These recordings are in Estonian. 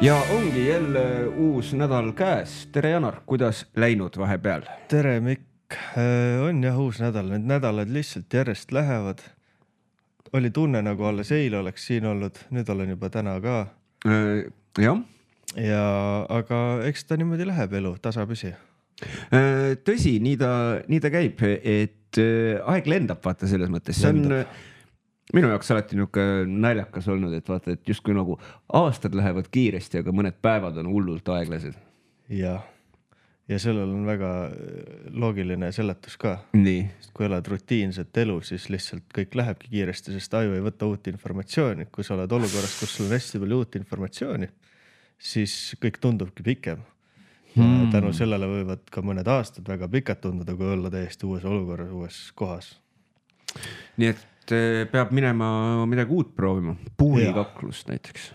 Ja ongi jälle uus nädal käes. Tere Janar, kuidas läinud vahepeal? Tere Mikk, on jah uus nädal, need nädalad lihtsalt järjest lähevad. Oli tunne nagu alles eile oleks siin olnud, nüüd olen juba täna ka. Jah. Aga eks ta niimoodi läheb elu, tasapisi. Tõsi, nii ta käib, et aeg lendab vaata selles mõttes. See on minu jaoks alati naljakas olnud, et vaata, et justkui nagu aastad lähevad kiiresti, aga mõned päevad on hullult aeglased. Ja sellel on väga loogiline seletus ka. Nii. Kui elad rutiinset elu, siis lihtsalt kõik lähebki kiiresti, sest aju ei võta uut informatsiooni. Kui sa oled olukorras, kus sul on hästi palju uut informatsiooni, siis kõik tundubki pikem. Tänu sellele võivad ka mõned aastad väga pikad tunduda, kui olla täiesti uues olukorras, uues kohas. Nii et peab minema midagi uut proovima. Puurikaklust näiteks.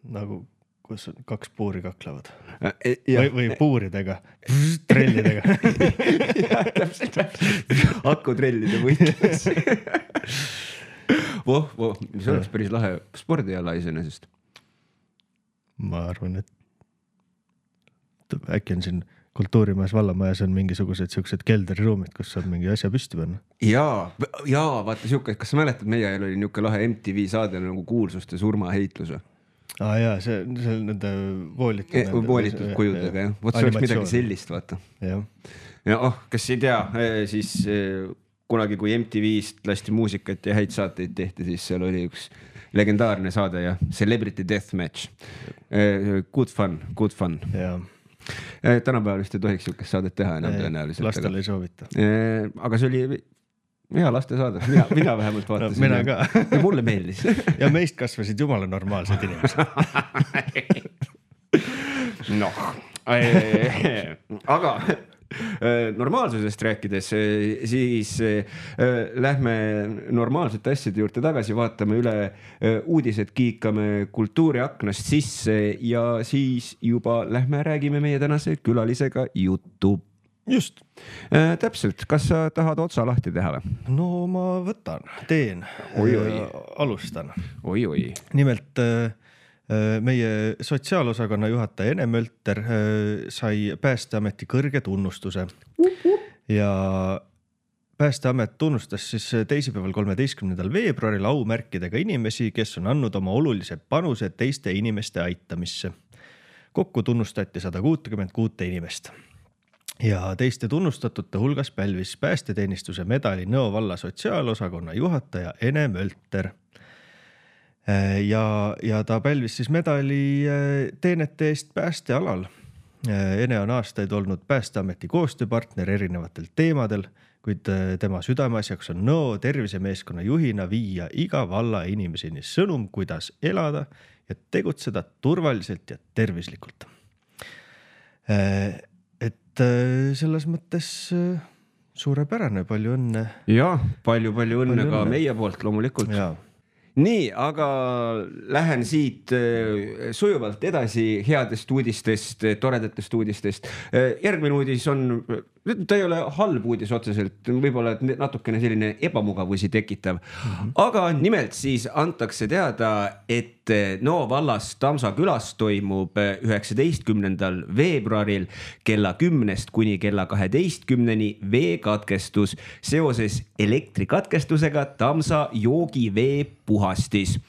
Nagu kus kaks puuri kaklevad. Või puuridega, trellidega. Täpselt. Akutrellide võitlus. See oleks päris lahe spordiala iseenesest. Ma arvan, et äkki on siin Kultuurimajas vallamajas on mingisugused siuksed kelderiruumid, kus saab mingi asja püsti panna. Jaa, vaata siuke, kas sa mäletad, meie ajal oli niuke lahe MTV saade nagu kuulsuste surmaheitlus. Jaa, see on nende voolitud kujudega, jah. Võt see oleks midagi sellist, vaata. Ja kes ei tea, siis kunagi kui MTV-st lasti muusikat ja häid saateid tehti, siis seal oli üks legendaarne saade ja Celebrity Deathmatch. Good fun. Jaa. Tänapäeval vist ei tohiks siukest saadet teha enam tõenäoliselt. Lastel ei soovita. Aga see oli hea laste saade. Mina vähemalt vaatasin. Mina ka. Ja mulle meeldis. Ja meist kasvasid jumala normaalsed inimesed. Aga normaalsusest rääkides, siis lähme normaalsete asjade juurde tagasi, vaatame üle uudised, kiikame kultuuriaknast sisse ja siis juba lähme räägime meie tänase külalisega juttu. Just. Täpselt, kas sa tahad otsa lahti teha või? No ma teen. Alustan. Oi. Nimelt meie sotsiaalosakonna juhataja Ene Mölter sai Päästeameti kõrge tunnustuse ja Päästeamet tunnustas siis teisipäeval 13. veebruaril aumärkidega inimesi, kes on andnud oma olulise panuse teiste inimeste aitamisse. Kokku tunnustati 166 inimest. Ja teiste tunnustatute hulgas pälvis päästeteenistuse medali Nõo valla sotsiaalosakonna juhataja Ene Mölter. Ja ta pälvis siis medali teenete eest päästealal. Ene on aastaid olnud Päästeameti koostööpartner erinevatel teemadel, kuid tema südameasjaks on Nõo tervisemeeskonna juhina viia iga valla inimeseni sõnum, kuidas elada ja tegutseda turvaliselt ja tervislikult. Et selles mõttes suurepärane, palju õnne. Ja, palju õnne ka meie poolt loomulikult. Jaa. Nii, aga lähen siit sujuvalt edasi headest uudistest, toredatest uudistest. Järgmine uudis on, ta ei ole halb uudis otseselt, võib-olla natukene selline ebamugavusi tekitav. Aga nimelt siis antakse teada, et Nõo vallas Tamsa külas toimub 19. veebruaril kella 10 kuni kella 12 veekatkestus seoses elektrikatkestusega Tamsa joogivee puhastis.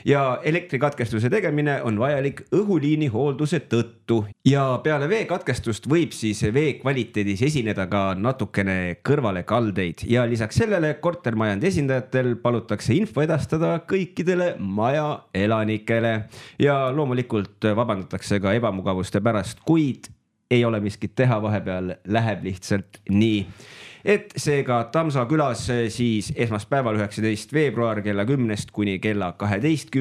Ja elektrikatkestuse tegemine on vajalik õhuliini hoolduse tõttu. Ja peale veekatkestust võib siis vee kvaliteedis esineda ka natukene kõrvale kaldeid. Ja lisaks sellele kortermajandi esindajatel palutakse info edastada kõikidele maja elanikele. Ja loomulikult vabandatakse ka ebamugavuste pärast, kuid ei ole miskit teha, vahepeal läheb lihtsalt nii. Et seega Tamsa külas siis esmaspäeval 19. veebruar kella 10 kuni kella 12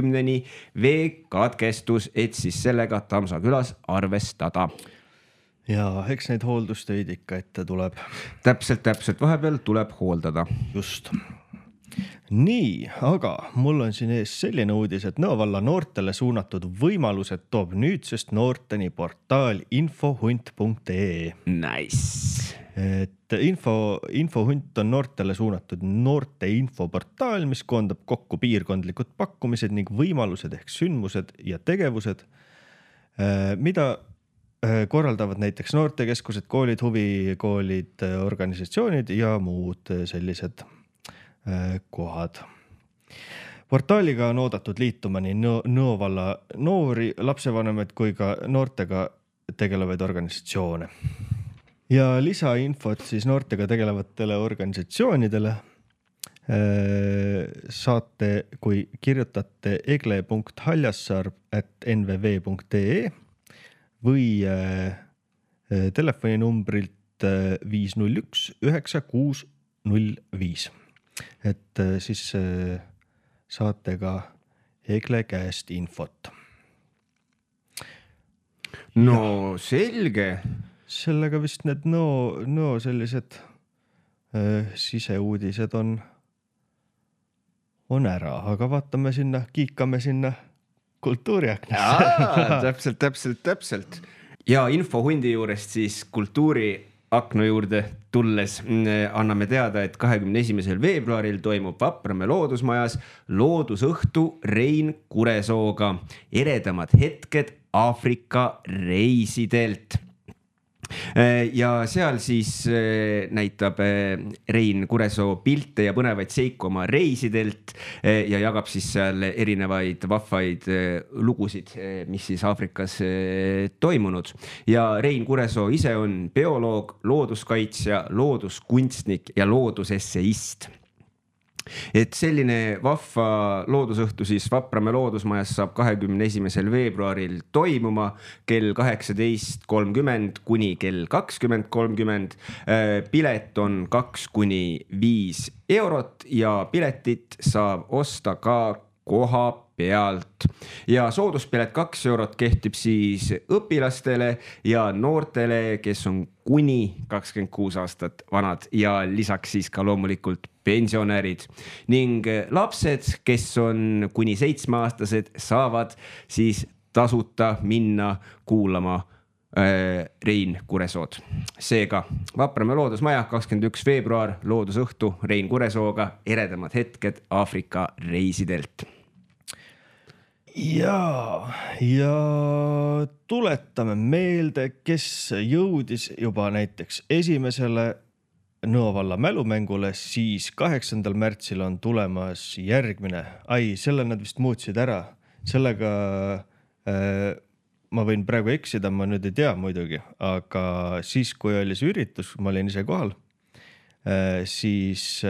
veekatkestus, et siis sellega Tamsa külas arvestada. Ja eks neid hooldustöid ikka ette tuleb. Täpselt, vahepeal tuleb hooldada. Just. Nii, aga mul on siin ees selline uudis, et Nõo valla noortele suunatud võimalused toob nüüdsest noorteni portaal infohunt.ee. Nice. Et infohunt on noortele suunatud noorte infoportaal, mis koondab kokku piirkondlikud pakkumised ning võimalused ehk sündmused ja tegevused, mida korraldavad näiteks noortekeskused, koolid, huvikoolid, organisatsioonid ja muud sellised kohad. Portaaliga on oodatud liituma nii Nõo valla noori, lapsevanemaid kui ka noortega tegelevaid organisatsioone. Ja lisainfot siis noortega tegelevatele organisatsioonidele saate, kui kirjutate egle.haljassaar@nvv.ee või telefoninumbrilt 501 9605. Et siis saate ka Egle käest infot. No selge. Sellega vist need Nõo sellised siseuudised on ära, aga vaatame sinna, kiikame sinna kultuuriaknasse. Täpselt. Ja infohundi juurest siis kultuuriakna juurde tulles anname teada, et 21. veebruaril toimub Vapramäe loodusmajas loodusõhtu Rein Kuresooga eredamad hetked Aafrika reisidelt. Ja seal siis näitab Rein Kuresoo pilte ja põnevaid seiku oma reisidelt ja jagab siis seal erinevaid vahvaid lugusid, mis siis Aafrikas toimunud. Ja Rein Kuresoo ise on bioloog, looduskaitsja, looduskunstnik ja loodusesseist. Et selline vahva loodusõhtu siis Vapramäe loodusmajas saab 21. veebruaril toimuma kell 18.30 kuni kell 20.30. Pilet on 2–5 eurot ja piletit saab osta ka koha pealt. Ja sooduspilet 2 eurot kehtib siis õpilastele ja noortele, kes on kuni 26 aastat vanad ja lisaks siis ka loomulikult pensionärid. Ning lapsed, kes on kuni 7-aastased, saavad siis tasuta minna kuulama Rein Kuresood. Seega Vapramäe loodusmaja 21. veebruar loodusõhtu Rein Kuresooga eredamad hetked Aafrika reisidelt. Ja tuletame meelde, kes jõudis juba näiteks esimesele Nõo valla mälumängule, siis 8. märtsil on tulemas järgmine. Selle nad vist muutsid ära. Sellega ma võin praegu eksida, ma nüüd ei tea muidugi, aga siis, kui oli see üritus, ma olin ise kohal, siis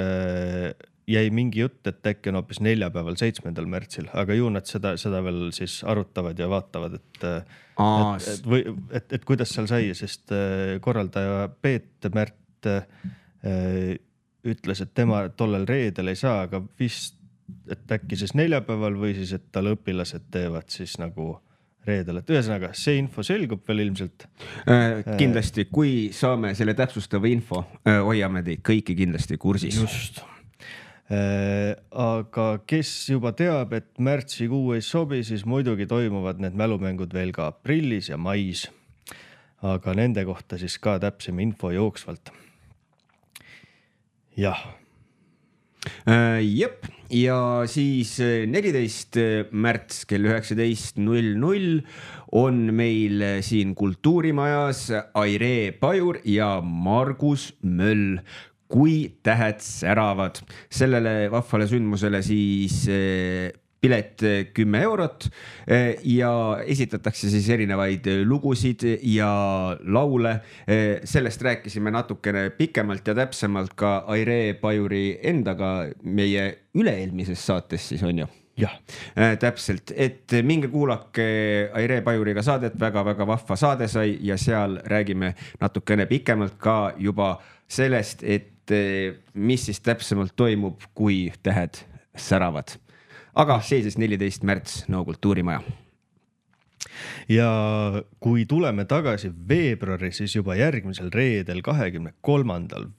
jäi mingi jutt, et äkki on hoopis neljapäeval 7. märtsil, aga ju nad seda veel siis arutavad ja vaatavad, et kuidas seal sai, sest korraldaja Peet Märt ütles, et tema tollel reedel ei saa, aga vist, et äkki siis neljapäeval või siis, et tal õpilased teevad siis nagu reedel, et ühesõnaga see info selgub veel ilmselt. Kindlasti, kui saame selle täpsustava info, hoiame teid kõiki kindlasti kursis. Just. Aga kes juba teab, et märtsikuu ei sobi, siis muidugi toimuvad need mälumängud veel ka aprillis ja mais. Aga nende kohta siis ka täpsem info jooksvalt. Jah. Jep, ja siis 14. märts kell 19.00 on meil siin kultuurimajas Aire Pajur ja Margus Möll, kui tähed säravad. Sellele vahvale sündmusele siis pilet 10 eurot ja esitatakse siis erinevaid lugusid ja laule. Sellest rääkisime natukene pikemalt ja täpsemalt ka Aire Pajuri endaga meie üle-eelmises saates siis on ju. Jah. Täpselt, et minge kuulake Aire Pajuriga saadet, väga-väga vahva saade sai ja seal räägime natukene pikemalt ka juba sellest, et mis siis täpsemalt toimub, kui tähed säravad. Aga see siis 14. märts Nõo kultuurimaja. Ja kui tuleme tagasi veebruari, siis juba järgmisel reedel 23.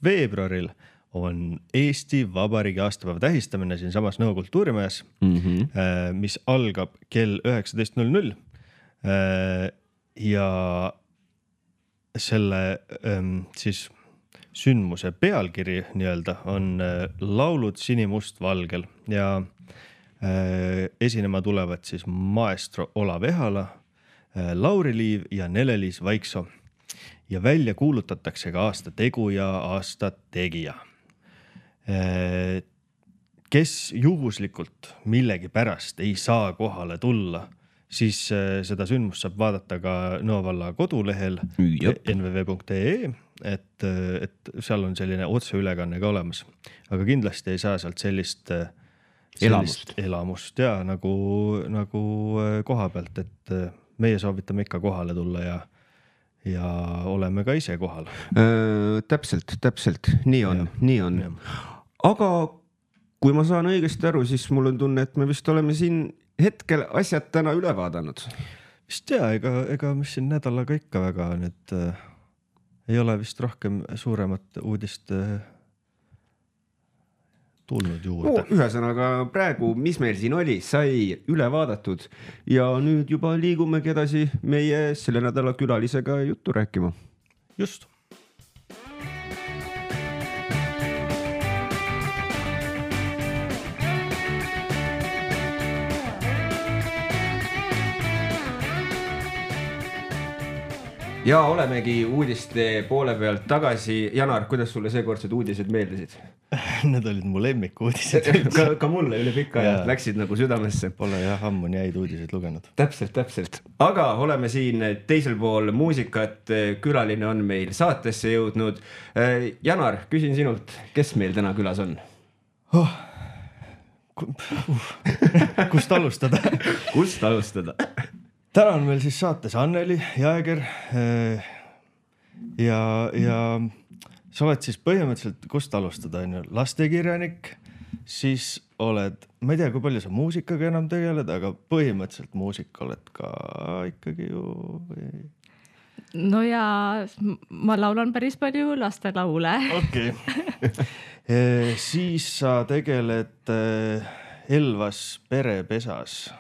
veebruaril on Eesti Vabariigi aastapäeva tähistamine siin samas Nõo kultuurimajas, mis algab kell 19.00 ja selle siis sündmuse pealkiri nii-öelda on laulud sinimustvalgel ja esinema tulevad siis maestro Olav Ehala, Lauri Liiv ja Nele-Liis Vaiksoo. Ja välja kuulutatakse ka aasta tegu ja aasta tegija. Kes juhuslikult millegi pärast ei saa kohale tulla, siis seda sündmust saab vaadata ka Nõo valla kodulehel nvv.ee, et seal on selline otseülekanne ka olemas. Aga kindlasti ei saa sealt sellist elamust ja nagu koha pealt, et meie soovitame ikka kohale tulla ja oleme ka ise kohal. Täpselt. Nii on. Aga kui ma saan õigesti aru, siis mul on tunne, et me vist oleme siin hetkel asjad täna üle vaadanud. Vist ega mis siin nädalaga ikka väga nüüd ei ole vist rohkem suuremat uudist tulnud juurde. Ühesõnaga praegu, mis meil siin oli, sai üle vaadatud ja nüüd juba liigumegi edasi meie selle nädala külalisega juttu rääkima. Just. Ja olemegi uudiste poole pealt tagasi. Janar, kuidas sulle seekordsed uudised meeldisid? Need olid mu lemmikuudised. ka mulle üle pika ja läksid nagu südamesse. Pole ammu nii häid uudiseid lugenud. Täpselt. Aga oleme siin teisel pool muusikat. Külaline on meil saatesse jõudnud. Janar, küsin sinult, kes meil täna külas on? Kust alustada? Täna on meil siis saates Anneli Jääger ja sa oled siis põhimõtteliselt, kust alustada, lastekirjanik, siis oled, ma ei tea, kui palju sa muusikaga enam tegeled, aga põhimõtteliselt muusika oled ka ikkagi ju... No ja ma laulan päris palju lastelaule. Okei. Siis sa tegeled Elvas perepesas.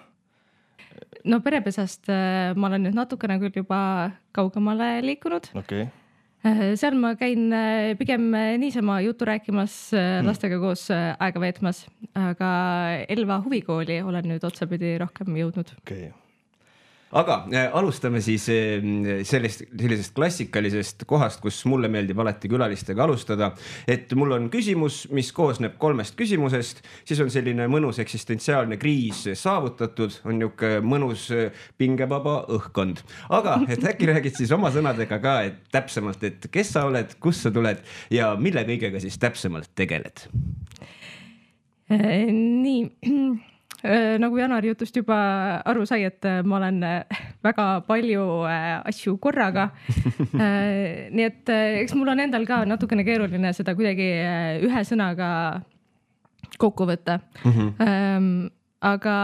No perepesast ma olen nüüd natukene küll juba kaugemale liikunud. Okay. Seal ma käin pigem niisama juttu rääkimas lastega koos aega veetmas, aga Elva huvikooli olen nüüd otsapidi rohkem jõudnud. Okay. Aga alustame siis sellisest klassikalisest kohast, kus mulle meeldib alati külalistega alustada, et mul on küsimus, mis koosneb 3 küsimusest, siis on selline mõnus eksistentsiaalne kriis saavutatud, on niuke mõnus pingevaba õhkkond. Aga et äkki räägid siis oma sõnadega ka, et täpsemalt, et kes sa oled, kus sa tuled ja mille kõigega siis täpsemalt tegeled? Nii... Nagu Janar jutust juba aru sai, et ma olen väga palju asju korraga. Nii et eks mul on endal ka natukene keeruline seda kuidagi ühe sõnaga kokku võtta. Aga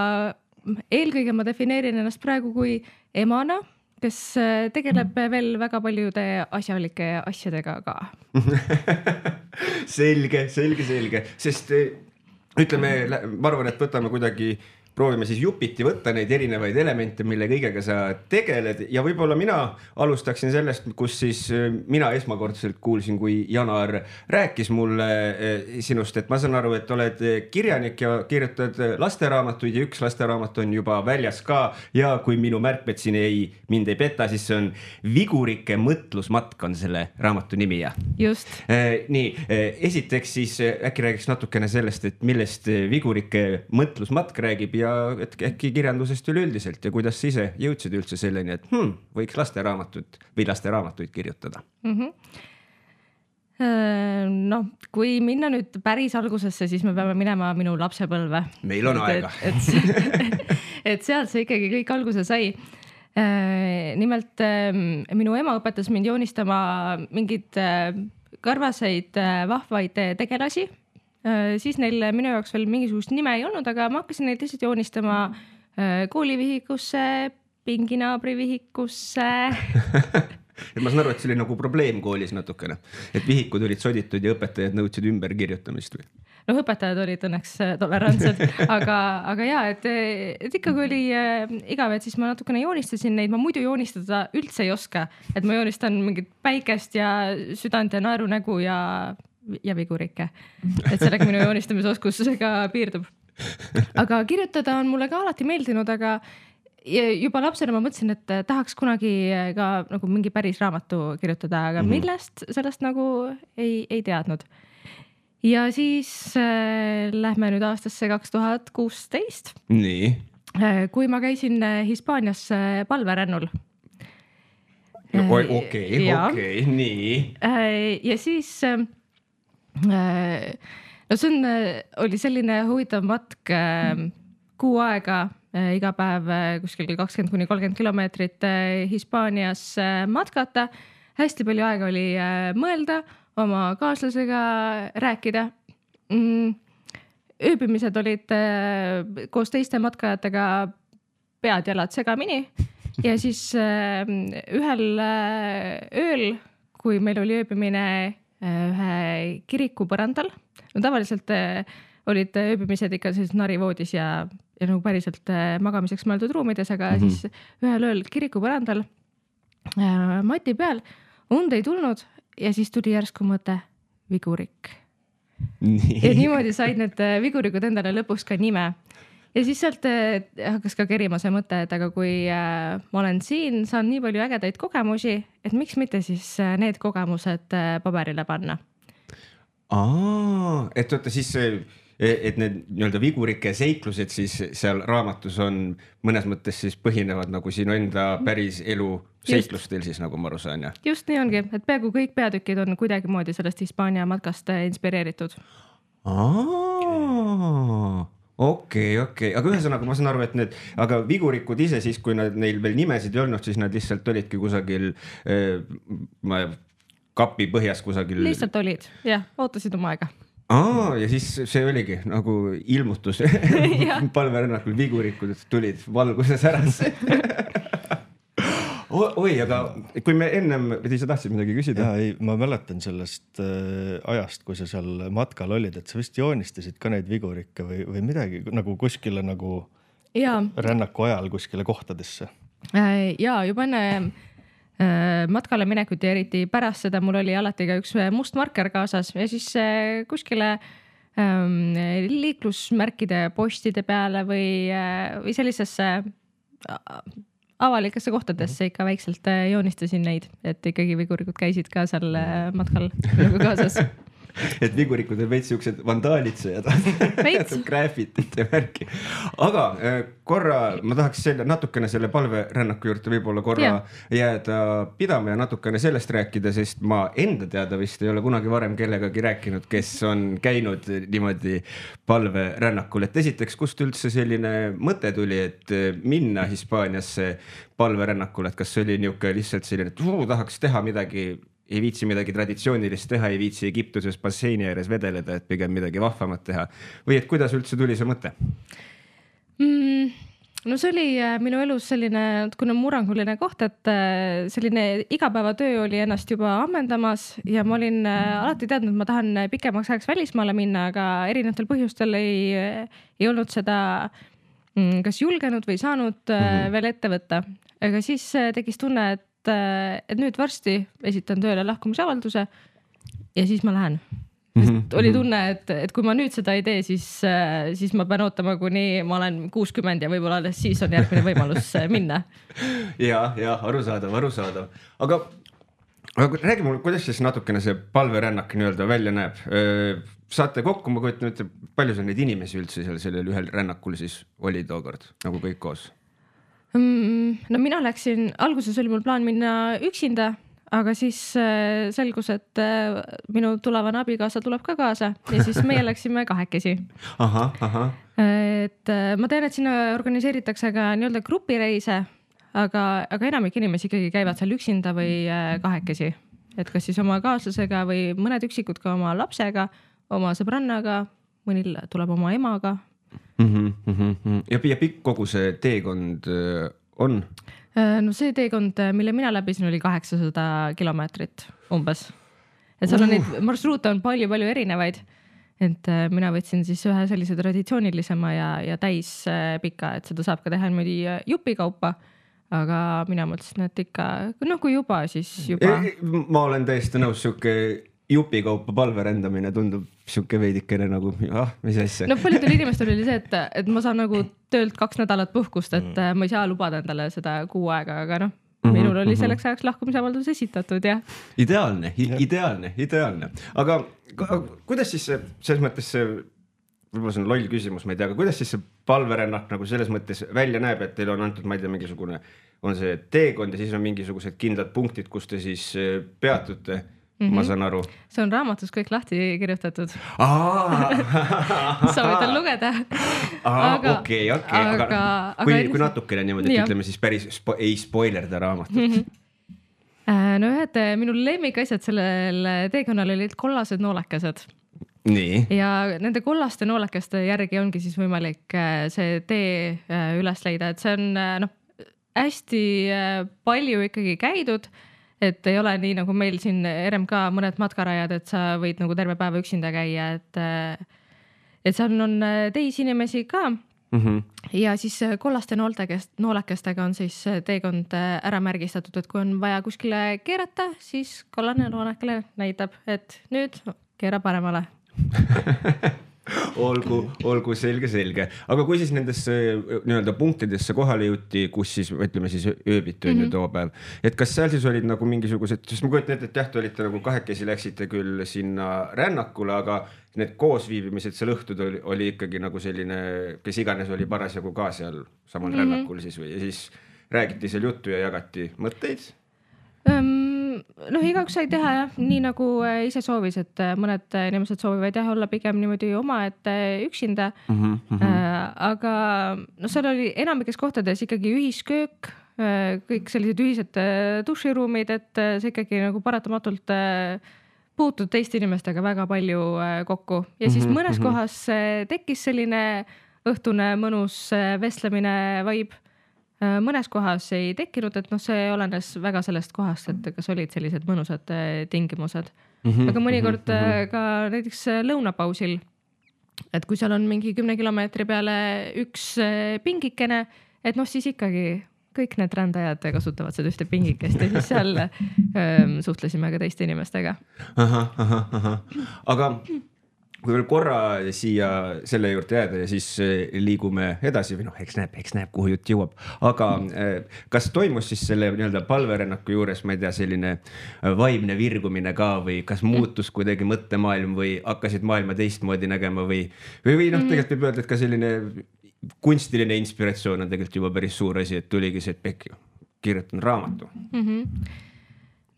eelkõige ma defineerin ennast praegu kui emana, kes tegeleb veel väga paljude asjalike asjadega ka. Selge. Sest ütleme, ma arvan, et võtame kuidagi, proovime siis jupiti võtta neid erinevaid elemente, mille kõigega sa tegeled ja võib-olla mina alustaksin sellest, kus siis mina esmakordselt kuulsin, kui Janar rääkis mulle sinust, et ma saan aru, et oled kirjanik ja kirjutad lasteraamatuid ja üks lasteraamat on juba väljas ka ja kui minu märkmed siin mind ei peta, siis see on Vigurike mõtlusmatk on selle raamatu nimi ja. Just. Nii, esiteks siis äkki räägiks natukene sellest, et millest Vigurike mõtlusmatk räägib ja et äkki kirjandusest üleüldiselt ja kuidas sa ise jõudsid üldse selleni, et võiks lasteraamatuid kirjutada? No, kui minna nüüd päris algusesse, siis me peame minema minu lapsepõlve. Meil on aega. Et sealt see ikkagi kõik alguse sai. Nimelt minu ema õpetas mind joonistama mingid karvaseid vahvaid tegelasi. Siis neil minu jaoks veel mingisugust nime ei olnud, aga ma hakkasin neid lihtsalt joonistama koolivihikusse, pinginaabrivihikusse. Et ma saan aru, et see oli nagu probleem koolis natukene, et vihikud olid soditud ja õpetajad nõudsid ümber kirjutamist või? No õpetajad olid õnneks tolerantsed, aga jaa, et ikkagi oli igav, et siis ma natukene joonistasin neid, ma muidu joonistada üldse ei oska, et ma joonistan mingit päikest ja südant ja naerunägu ja vigurikke. Et sellega minu joonistamisoskusega piirdub. Aga kirjutada on mulle ka alati meeldinud, aga juba lapsena ma mõtlesin, et tahaks kunagi ka nagu mingi päris raamatu kirjutada, aga millest sellest nagu ei teadnud. Ja siis lähme nüüd aastasse 2016. Nii. Kui ma käisin Hispaanias palverännul. Okei, nii. Ja siis no see oli selline huvitav matk kuu aega, iga päev kuskil 20–30 kilomeetrit Hispaanias matkata. Hästi palju aega oli mõelda, oma kaaslasega rääkida. Ööbimised olid koos teiste matkajatega pead-jalad segamini ja siis ühel ööl, kui meil oli ööbimine ühe kiriku põrandal, no tavaliselt olid ööbimised ikka siis narivoodis ja nagu päriselt magamiseks mõeldud ruumides, aga siis ühel ööl kiriku põrandal mati peal und ei tulnud ja siis tuli järsku mõte vigurik. Ja niimoodi said need vigurikud endale lõpuks ka nime. Ja siis sealt hakkas ka kerima see mõte, et aga kui ma olen siin, saan nii palju ägedaid kogemusi, et miks mitte siis need kogemused paberile panna. Et oota siis, et need nii-öelda vigurike seiklused siis seal raamatus on mõnes mõttes siis põhinevad nagu sinu enda päris elu seiklustel siis, nagu ma aru saan, ja? Just nii ongi, et peaaegu kõik peatükid on kuidagi moodi sellest Hispaania matkast inspireeritud. Okei. Aga ühesõnaga ma saan aru, et need, aga vigurikud ise siis, kui neil veel nimesid ei olnud, siis nad lihtsalt olidki kusagil kapi põhjas kusagil. Lihtsalt olid, jah, ootasid oma aega. Ja siis see oligi nagu ilmutus palverännakul, vigurikud tulid valguses ärasse. Oi, aga kui me ennem, sa tahtsid midagi küsida? Ja, ma mäletan sellest ajast, kui sa seal matkal olid, et sa vist joonistasid ka neid vigurikke või midagi nagu kuskile nagu rännaku ajal kuskile kohtadesse. Ja juba enne matkale minekut ja eriti pärast seda mul oli alati ka üks must marker kaasas ja siis kuskile liiklusmärkide postide peale või sellisesse avalikesse kohtadesse ikka väikselt joonistasin neid, et ikkagi vigurikud käisid ka seal matkal nagu kaasas. Et vigurikud on veits siuksed vandaalitsejad, graafitit ja märki. Aga korra ma tahaks natukene selle palverännaku juurde võib-olla korra jääda pidama ja natukene sellest rääkida, sest ma enda teada vist ei ole kunagi varem kellegagi rääkinud, kes on käinud niimoodi palverännakul. Et esiteks, kust üldse selline mõte tuli, et minna Hispaaniasse palverännakul, et kas see oli niuke lihtsalt selline, et tahaks teha midagi, ei viitsi midagi traditsioonilist teha, ei viitsi Egiptuses basseini ääres vedeleda, et pigem midagi vahvamat teha. Või et kuidas üldse tuli see mõte? No see oli minu elus selline kuna murranguline koht, et selline igapäevatöö oli ennast juba ammendamas ja ma olin alati teadnud, et ma tahan pikemaks ajaks välismaale minna, aga erinevatel põhjustel ei olnud seda kas julgenud või saanud veel ette võtta. Aga siis tegis tunne, et nüüd varsti esitan tööle lahkumisavalduse ja siis ma lähen. Oli tunne, et kui ma nüüd seda ei tee, siis ma pean ootama, kuni ma olen 60 ja võib-olla alles siis on järgmine võimalus minna. Ja, arusaadav. Aga räägi mulle, kuidas siis natukene see palverännak nii-öelda välja näeb? Saate kokku, ma kujutan nüüd, palju sa neid inimesi üldse sellel ühel rännakul siis oli tookord, nagu kõik koos? No mina läksin, alguses oli mul plaan minna üksinda, aga siis selgus, et minu tulevane abikaasa tuleb ka kaasa ja siis meie läksime kahekesi. Et ma tean, et sinna organiseeritakse ka nii-öelda grupireise, aga enamik inimesi ikkagi käivad seal üksinda või kahekesi. Et kas siis oma kaaslasega või mõned üksikud ka oma lapsega, oma sõbrannaga, mõnil tuleb oma emaga. Ja pikk kogu see teekond on? No see teekond, mille mina läbisin, oli 800 kilomeetrit umbes. Et seal on neid marsruute on palju erinevaid. Et mina võtsin siis ühe sellise traditsioonilisema ja täis pika, et seda saab ka teha niimoodi jupikaupa. Aga mina mõtlesin, et ikka, kui juba, siis juba. Ma olen täiesti nõus, siuke jupikaupa palverändamine tundub siuke veidikene nagu, mis asja. No paljudel inimestel oli see, et ma saan nagu töölt 2 nädalat puhkust, et ma ei saa lubada endale seda kuu aega, aga noh, minul oli selleks ajaks lahkumisavaldus esitatud ja. Ideaalne. Aga kuidas siis selles mõttes see, võib-olla see on loll küsimus, ma ei tea, aga kuidas siis see palverännak nagu selles mõttes välja näeb, et teil on antud, ma ei tea, mingisugune, on see teekond ja siis on mingisugused kindlad punktid, kus te siis peatute, ma saan aru. See on raamatus kõik lahti kirjutatud. Soovitan lugeda. Okei. Aga kui natukene niimoodi, et ütleme siis päris ei spoilerda raamatut. No ühed minu lemmikasjad sellel teekonnal olid kollased noolekesed. Nii. Ja nende kollaste noolekeste järgi ongi siis võimalik see tee üles leida, et see on hästi palju ikkagi käidud, et ei ole nii nagu meil siin RMK mõned matkarajad, et sa võid nagu terve päeva üksinda käia, et seal on teisi inimesi ka. Ja siis kollaste noolekestega on siis teekond ära märgistatud, et kui on vaja kuskile keerata, siis kollane noolekele näitab, et nüüd keera paremale. olgu selge. Aga kui siis nendesse nii-öelda punktidesse kohale jõuti, kus siis, ütleme siis ööbitu on ju too päev, et kas seal siis olid nagu mingisugused, sest ma kujutan ette, et jah, te olite nagu kahekesi läksite küll sinna rännakule, aga need koosviibimised seal õhtud oli ikkagi nagu selline, kes iganes oli parasjagu ka seal samal rännakul siis või, ja siis räägiti seal juttu ja jagati mõtteid? Noh, igaüks sai teha jah, nii nagu ise soovis, et mõned inimesed soovivad jah olla pigem niimoodi oma, et üksinda. Aga no seal oli enamikes kohtades ikkagi ühisköök, kõik sellised ühised duširuumid, et see ikkagi nagu paratamatult puutud teiste inimestega väga palju kokku. Ja siis mõnes kohas tekkis selline õhtune mõnus vestlemine vibe. Mõnes kohas ei tekkinud, et see olenes väga sellest kohast, et kas olid sellised mõnusad tingimused. Aga mõnikord ka näiteks lõunapausil, et kui seal on mingi 10 kilomeetri peale üks pingikene, et siis ikkagi kõik need rändajad kasutavad seda ühte pingikest ja siis seal suhtlesime ka teiste inimestega. Aga kui veel korra siia selle juurde jääda ja siis liigume edasi või eks näeb, kuhu jutt jõuab. Aga kas toimus siis selle nii-öelda palverännaku juures, ma ei tea, selline vaimne virgumine ka või kas muutus kuidagi mõttemaailm või hakkasid maailma teistmoodi nägema või tegelikult võib öelda, et ka selline kunstiline inspiratsioon on tegelikult juba päris suur asi, et tuligi see, et kirjutan raamatu.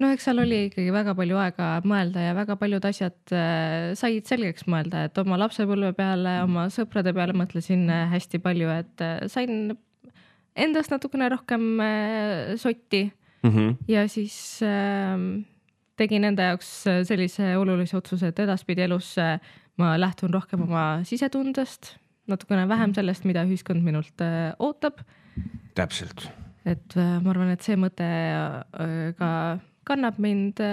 No eks seal oli ikkagi väga palju aega mõelda ja väga paljud asjad said selgeks mõelda, et oma lapsepõlve peale, oma sõprade peale mõtlesin hästi palju, et sain endast natukene rohkem sotti ja siis tegin enda jaoks sellise olulise otsuse, et edaspidi elus ma lähtun rohkem oma sisetundest, natukene vähem sellest, mida ühiskond minult ootab. Täpselt. Et ma arvan, et see mõte ka kannab mind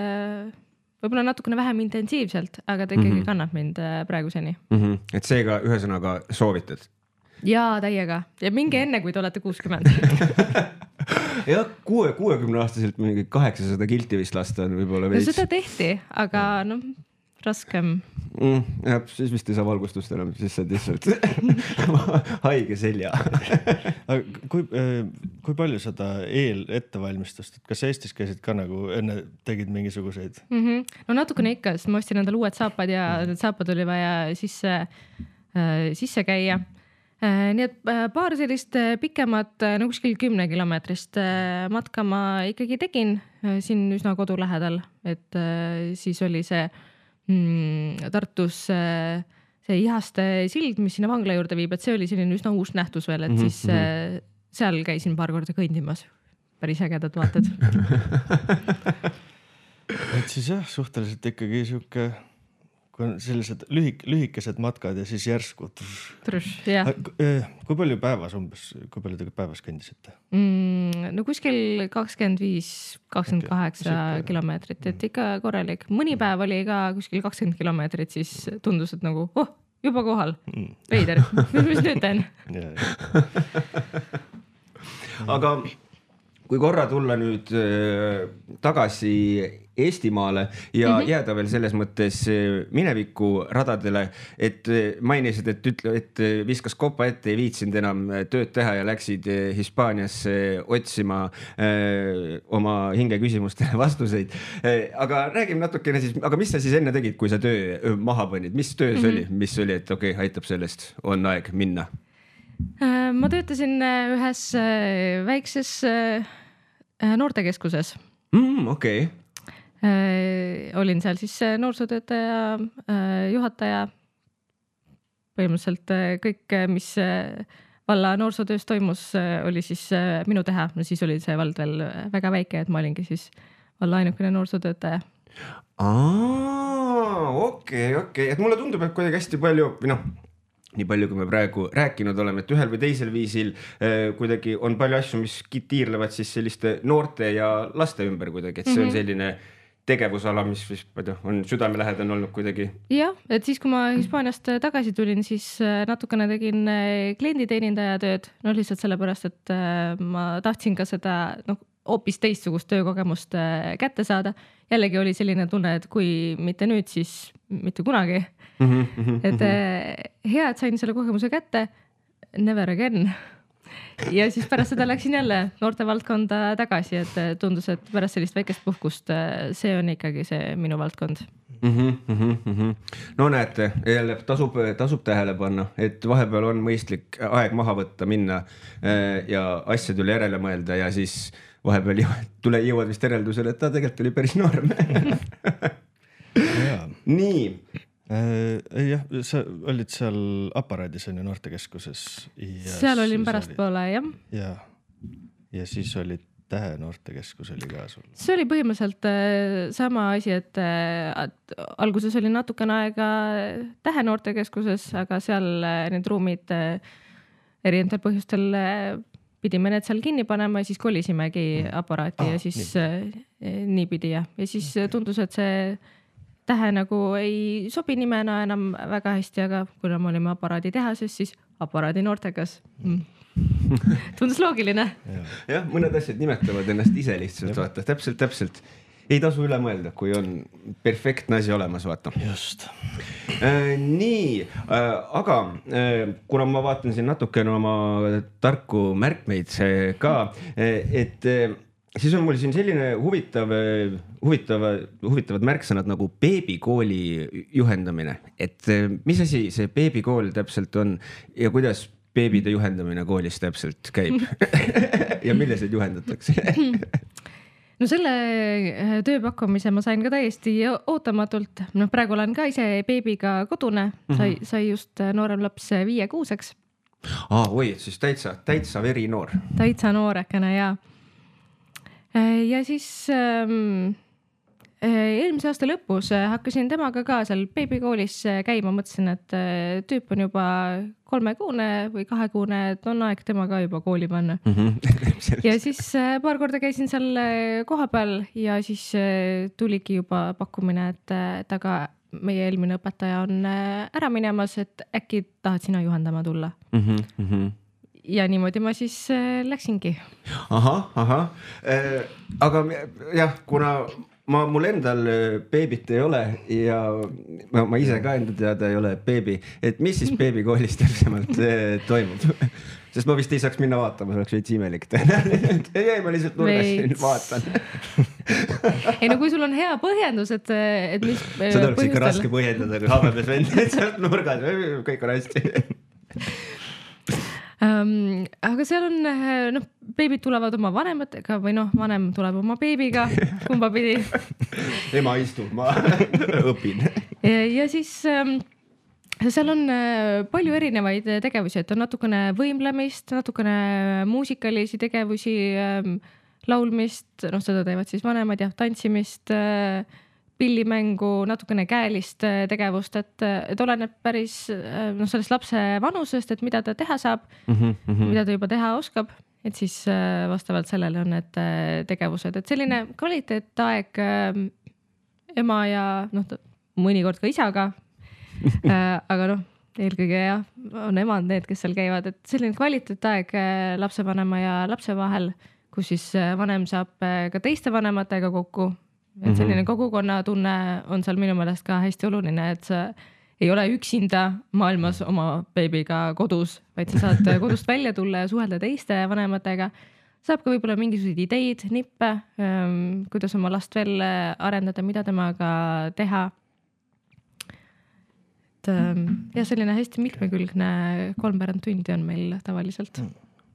võib-olla natukene vähem intensiivselt, aga ta ikkagi kannab mind praeguseni. Et seega ühesõnaga soovitad? Jaa, täiega. Ja minge enne, kui te olete 60. Ja 60-aastaselt mingi 800 kilti vist lasta on võib-olla veits. No seda tehti, aga raskem. Jah, siis vist ei saa valgustust enam, siis saad lihtsalt haige selja. Kui palju seda ettevalmistust, et kas Eestis käisid ka nagu enne tegid mingisuguseid? No natukene ikka, sest ma ostsin endale uued saapad ja need saapad oli vaja sisse käia. Nii et paar sellist pikemat, kuskil 10 kilomeetrist matka ma ikkagi tegin siin üsna kodu lähedal, et siis oli see Tartus see Ihaste sild, mis sinna vangla juurde viib, et see oli selline üsna uus nähtus veel, et siis seal käisin paar korda kõndimas. Päris ägedad vaated. Et siis jah, suhteliselt ikkagi siuke, kui on sellised lühikesed matkad ja siis järsku. Kui palju päevas umbes, kui palju te päevas kõndisite? No kuskil 25-28 kilomeetrit, et ikka korralik. Mõni päev oli ka kuskil 20 kilomeetrit, siis tundus, et nagu, juba kohal. Veider, mis nüüd teen? Aga kui korra tulla nüüd tagasi Eestimaale ja jääda veel selles mõttes mineviku radadele, et mainisid, et viskas kopa ette, ei viitsinud enam tööd teha ja läksid Hispaaniasse otsima oma hingeküsimustele vastuseid. Aga räägime natukene siis, aga mis sa siis enne tegid, kui sa töö maha panid? Mis töö see oli? Mis oli, et okei, aitab sellest, on aeg minna? Ma töötasin ühes väikses noortekeskuses. Okei. Olin seal siis noorsootöötaja, juhataja, põhimõtteliselt kõik, mis valla noorsootöös toimus, oli siis minu teha. No siis oli see vald veel väga väike, et ma olingi siis valla ainukene noorsootöötaja. Okei. Et mulle tundub, et kuidagi hästi palju, nii palju, kui me praegu rääkinud oleme, et ühel või teisel viisil kuidagi on palju asju, mis tiirlevad siis selliste noorte ja laste ümber kuidagi, et see on selline tegevusala, mis on südamelähedane olnud kuidagi. Jah, et siis, kui ma Hispaaniast tagasi tulin, siis natukene tegin klienditeenindaja tööd, lihtsalt sellepärast, et ma tahtsin ka seda hoopis teistsugust töökogemust kätte saada. Jällegi oli selline tunne, et kui mitte nüüd, siis mitte kunagi. Et hea, et sain selle kogemuse kätte, never again. Ja siis pärast seda läksin jälle noorte valdkonda tagasi, et tundus, et pärast sellist väikest puhkust see on ikkagi see minu valdkond. No näete, jälle tasub tähele panna, et vahepeal on mõistlik aeg maha võtta, minna ja asjadele järele mõelda ja siis vahepeal jõuad vist järeldusele, et ta tegelikult oli päris noorm. Nii. Jah, sa olid seal aparaadis on ju noortekeskuses. Seal olin pärast poole, jah. Ja siis olid Tähe noortekeskus oli ka sul. See oli põhimõtteliselt sama asi, et alguses oli natukene aega Tähe noortekeskuses, aga seal need ruumid erinevatel põhjustel pidime need seal kinni panema ja siis kolisimegi aparaati ja siis nii pidi ja siis tundus, et see Tähe nagu ei sobi nimena enam väga hästi, aga kuna me olime aparaadi tehases, siis aparaadi noortekas. Tundus loogiline. Jah, mõned asjad nimetavad ennast ise lihtsalt, vaata, täpselt. Ei tasu üle mõelda, kui on perfektne asi olemas, vaata. Just. Nii, aga kuna ma vaatan siin natukene oma tarku märkmeid ka, et siis on mul siin selline huvitavad märksõnad nagu beebikooli juhendamine, et mis asi see beebikool täpselt on ja kuidas beebide juhendamine koolis täpselt käib ja milliseid juhendatakse? No selle tööpakkumise ma sain ka täiesti ootamatult. Praegu olen ka ise beebiga kodune, sai just noorem laps 5-6-ks. Oi, siis täitsa veri noor. Täitsa noorekene, jaa. Ja siis eelmise aasta lõpus hakkasin temaga ka seal beebikoolis käima, mõtlesin, et tüüp on juba 3-kuune või 2-kuune, et on aeg tema ka juba kooli panna. Ja siis paar korda käisin seal koha peal ja siis tuligi juba pakkumine, et aga meie eelmine õpetaja on ära minemas, et äkki tahad sina juhendama tulla. Ja niimoodi ma siis läksingi. Aha. Aga jah, kuna mul endal beebit ei ole ja ma ise ka enda teada ei ole beebi, et mis siis beebikoolis täpsemalt toimub? Sest ma vist ei saaks minna vaatama, see oleks veits imelik. Ei, ma lihtsalt nurgasin vaatan. Ei, no kui sul on hea põhjendus, et mis seda oleks ikka raske põhjendada, kui habemes vend sealt nurgas, kõik on hästi. Aga seal on, beebid tulevad oma vanematega või vanem tuleb oma beebiga, kumba pidi. Ema istub, ma õpin. Ja siis seal on palju erinevaid tegevusi, et on natukene võimlemist, natukene muusikalisi tegevusi, laulmist, seda teevad siis vanemad ja tantsimist, pillimängu, natukene käelist tegevust, et oleneb päris sellest lapse vanusest, et mida ta teha saab, mida ta juba teha oskab, et siis vastavalt sellele on need tegevused, et selline kvaliteetaeg ema ja mõnikord ka isaga, aga eelkõige on emad need, kes seal käivad, et selline kvaliteetaeg lapsevanema ja lapse vahel, kus siis vanem saab ka teiste vanematega kokku. Et selline kogukonna tunne on seal minu meelest ka hästi oluline, et sa ei ole üksinda maailmas oma beebiga kodus, vaid sa saad kodust välja tulla ja suhelda teiste vanematega. Saab ka võib-olla mingisuguseid ideid, nippe, kuidas oma last veel arendada, mida temaga teha. Ja selline hästi mitmekülgne 3 tundi on meil tavaliselt.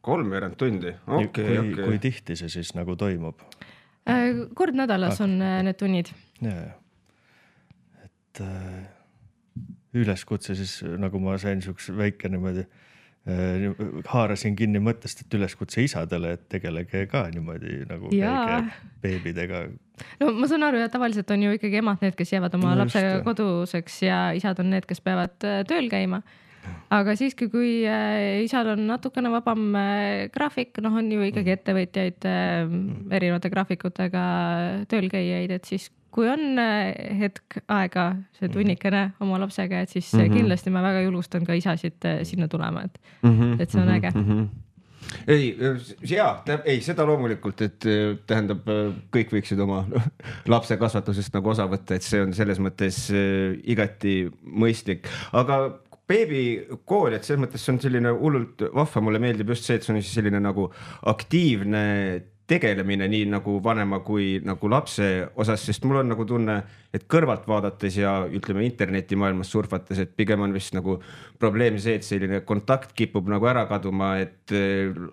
3 tundi? Kui tihti see siis nagu toimub? Kord nädalas on need tunnid. Ja. Et üleskutse siis, nagu ma sain siuks väike niimoodi, haarasin kinni mõttest, et üleskutse isadele, et tegelege ka niimoodi nagu käige beebidega. No ma saan aru, ja tavaliselt on ju ikkagi emad need, kes jäävad oma lapse koduseks ja isad on need, kes peavad tööl käima. Aga siiski, kui isal on natukene vabam graafik, on ju ikkagi ettevõtjaid erinevate graafikutega tööl käijaid, et siis kui on hetk aega see tunnikene oma lapsega, et siis kindlasti ma väga julgustan ka isasid sinna tulema, et see on äge. Ei, seda loomulikult, et tähendab, kõik võiksid oma lapse kasvatusest nagu osa võtta, et see on selles mõttes igati mõistlik. Aga beebikool, et selles mõttes on selline hullult vahva, mulle meeldib just see, et see on selline nagu aktiivne tegelemine nii nagu vanema kui nagu lapse osas, sest mul on nagu tunne, et kõrvalt vaadates ja ütleme internetimaailmas surfates, et pigem on vist nagu probleem see, et selline kontakt kipub nagu ära kaduma, et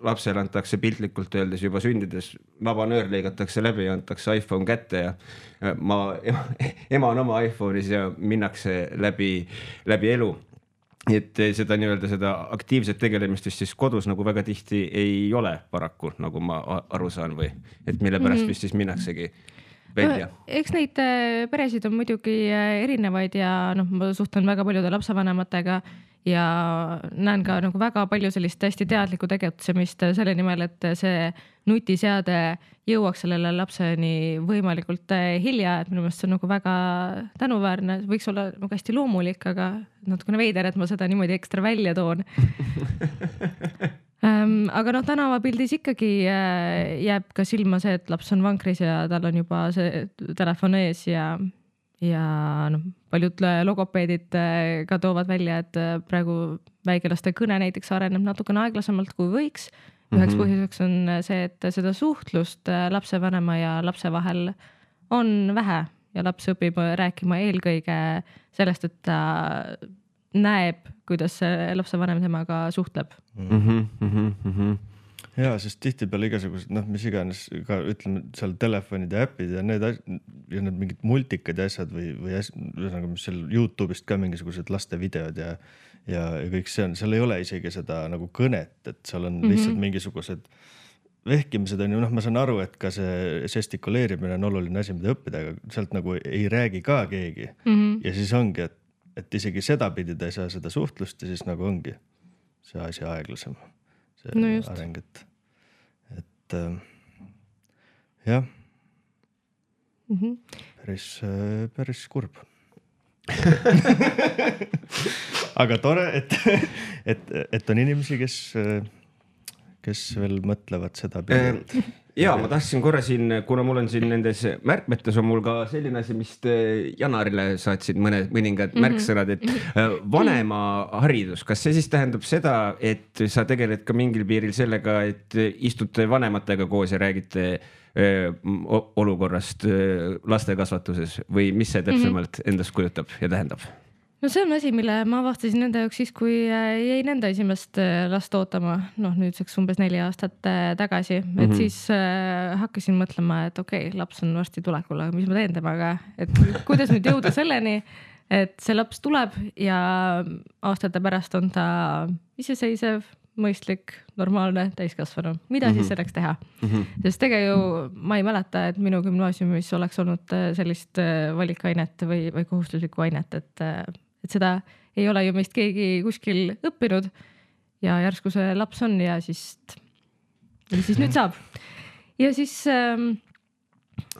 lapsele antakse piltlikult öeldes juba sündides vabanöör lõigatakse läbi ja antakse iPhone kätte ja ema on oma iPhone'is ja minnakse läbi elu. Et seda nii-öelda seda aktiivset tegelemist siis kodus nagu väga tihti ei ole paraku, nagu ma aru saan või, et mille pärast vist siis minnaksegi välja. Eks neid peresid on muidugi erinevaid ja ma suhtlen väga paljude lapsevanematega ja näen ka nagu väga palju sellist hästi teadlikku tegutsemist selle nimel, et see nutiseade jõuaks sellele lapseni võimalikult hilja, et minu meelest see on nagu väga tänuväärne, võiks olla nagu hästi loomulik, aga natukene veider, et ma seda niimoodi ekstra välja toon. Aga tänavapildis ikkagi jääb ka silma see, et laps on vankris ja tal on juba see telefon ees ja paljud logopeedid ka toovad välja, et praegu väikelaste kõne näiteks areneb natukene aeglasemalt kui võiks. Üheks põhjuseks on see, et seda suhtlust lapsevanema ja lapse vahel on vähe ja laps õpib rääkima eelkõige sellest, et ta näeb, kuidas lapsevanem temaga suhtleb. Ja, sest tihtipeale igasugused, mis iganes ka ütleme seal telefonid ja äpid ja need mingid multikad ja asjad või mis seal YouTube'ist ka mingisugused laste videod ja kõik see on, seal ei ole isegi seda nagu kõnet, et seal on lihtsalt mingisugused vehkimised on ju, ma saan aru, et ka see žestikuleerimine on oluline asi, mida õppida, aga sealt nagu ei räägi ka keegi. Ja siis ongi, et isegi seda pidi ta ei saa seda suhtlust ja siis nagu ongi see asi aeglasem. See areng, et jah, päris kurb. Aga tore, et on inimesi, kes veel mõtlevad seda pidi. Ja ma tahtsin korra siin, kuna mul on siin nendes märkmetes on mul ka selline asi, mis Janarile saatsid mõningad märksõnad, et vanema haridus, kas see siis tähendab seda, et sa tegeled ka mingil piiril sellega, et istute vanematega koos ja räägite olukorrast laste kasvatuses või mis see täpsemalt endast kujutab ja tähendab? No see on asi, mille ma avastasin nende jaoks siis, kui jäi nende esimest last ootama, nüüdseks umbes 4 aastat tagasi, et siis hakkasin mõtlema, et okei, laps on varsti tulekul, aga mis ma teen temaga, et kuidas nüüd jõuda selleni, et see laps tuleb ja aastate pärast on ta iseseisev, mõistlik, normaalne, täiskasvanu. Mida siis selleks teha? Sest ma ei mäleta, et minu gümnaasiumis oleks olnud sellist valikainet või kohustuslikku ainet, et seda ei ole ju meist keegi kuskil õppinud ja järsku see laps on ja siis nüüd saab. Ja siis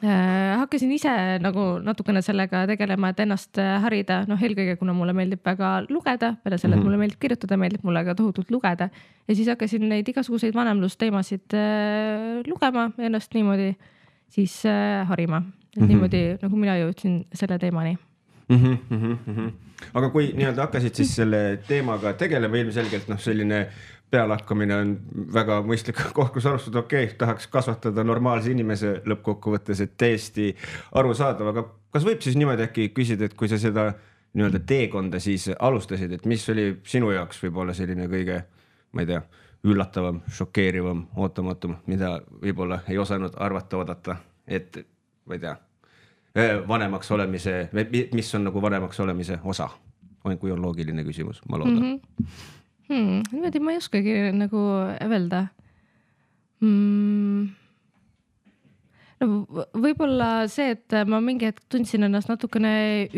Hakkasin ise nagu natukene sellega tegelema, et ennast harida, eelkõige kuna mulle meeldib väga lugeda, peale selle, et mulle meeldib kirjutada, meeldib mulle ka tohutult lugeda ja siis hakkasin neid igasuguseid vanemlusteemasid lugema ja ennast niimoodi siis harima, et niimoodi nagu mina jõudsin selle teemani. Aga kui nii-öelda hakkasid siis selle teemaga tegelema, ilmselgelt selline pealakkamine on väga mõistlik koht, kus alustada, tahaks kasvatada normaalse inimese lõppkokkuvõttes, et täiesti arusaadav, aga kas võib siis niimoodi äkki küsida, et kui sa seda nii-öelda teekonda siis alustasid, et mis oli sinu jaoks võib-olla selline kõige, ma ei tea, üllatavam, šokeerivam, ootamatum, mida võib-olla ei osanud arvata, oodata, et ma ei tea, vanemaks olemise, mis on nagu vanemaks olemise osa, kui on loogiline küsimus, ma loodan. Niimoodi ma ei oskagi nagu öelda. Võib-olla see, et ma mingi hetk tundsin ennast natukene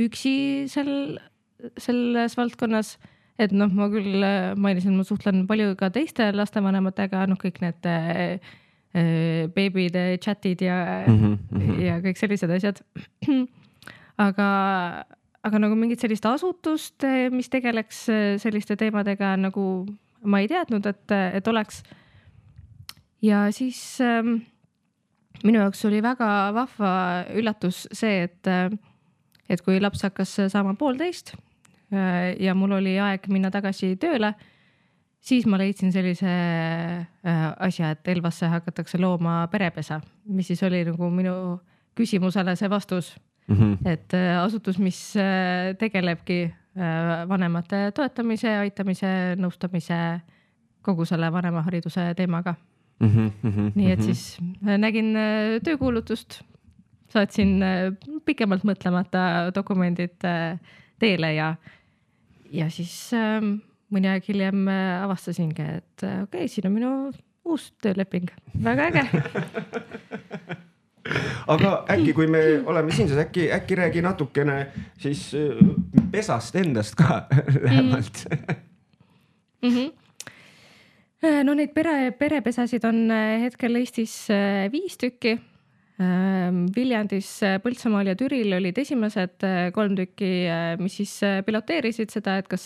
üksi selles valdkonnas, et ma küll mainisin, ma suhtlen palju ka teiste lastevanematega, kõik need beebide chatid ja kõik sellised asjad. Aga nagu mingit sellist asutust, mis tegeleks selliste teemadega, nagu ma ei teadnud, et oleks. Ja siis minu jaoks oli väga vahva üllatus see, et kui laps hakkas saama 1,5 ja mul oli aeg minna tagasi tööle, siis ma leidsin sellise asja, et Elvasse hakatakse looma perepesa, mis siis oli nagu minu küsimusele see vastus. Et asutus, mis tegelebki vanemate toetamise, aitamise, nõustamise, kogu selle vanemahariduse teemaga. Nii et siis nägin töökuulutust, saatsin pikemalt mõtlemata dokumendid teele ja siis mõni aeg hiljem avastasingi, et okei, siin on minu uus tööleping. Väga äge. Aga äkki, kui me oleme siin, siis äkki räägi natukene siis pesast endast ka lähemalt. No neid perepesasid on hetkel Eestis 5 tükki. Viljandis, Põltsamaal ja Türil olid esimesed 3 tükki, mis siis piloteerisid seda, et kas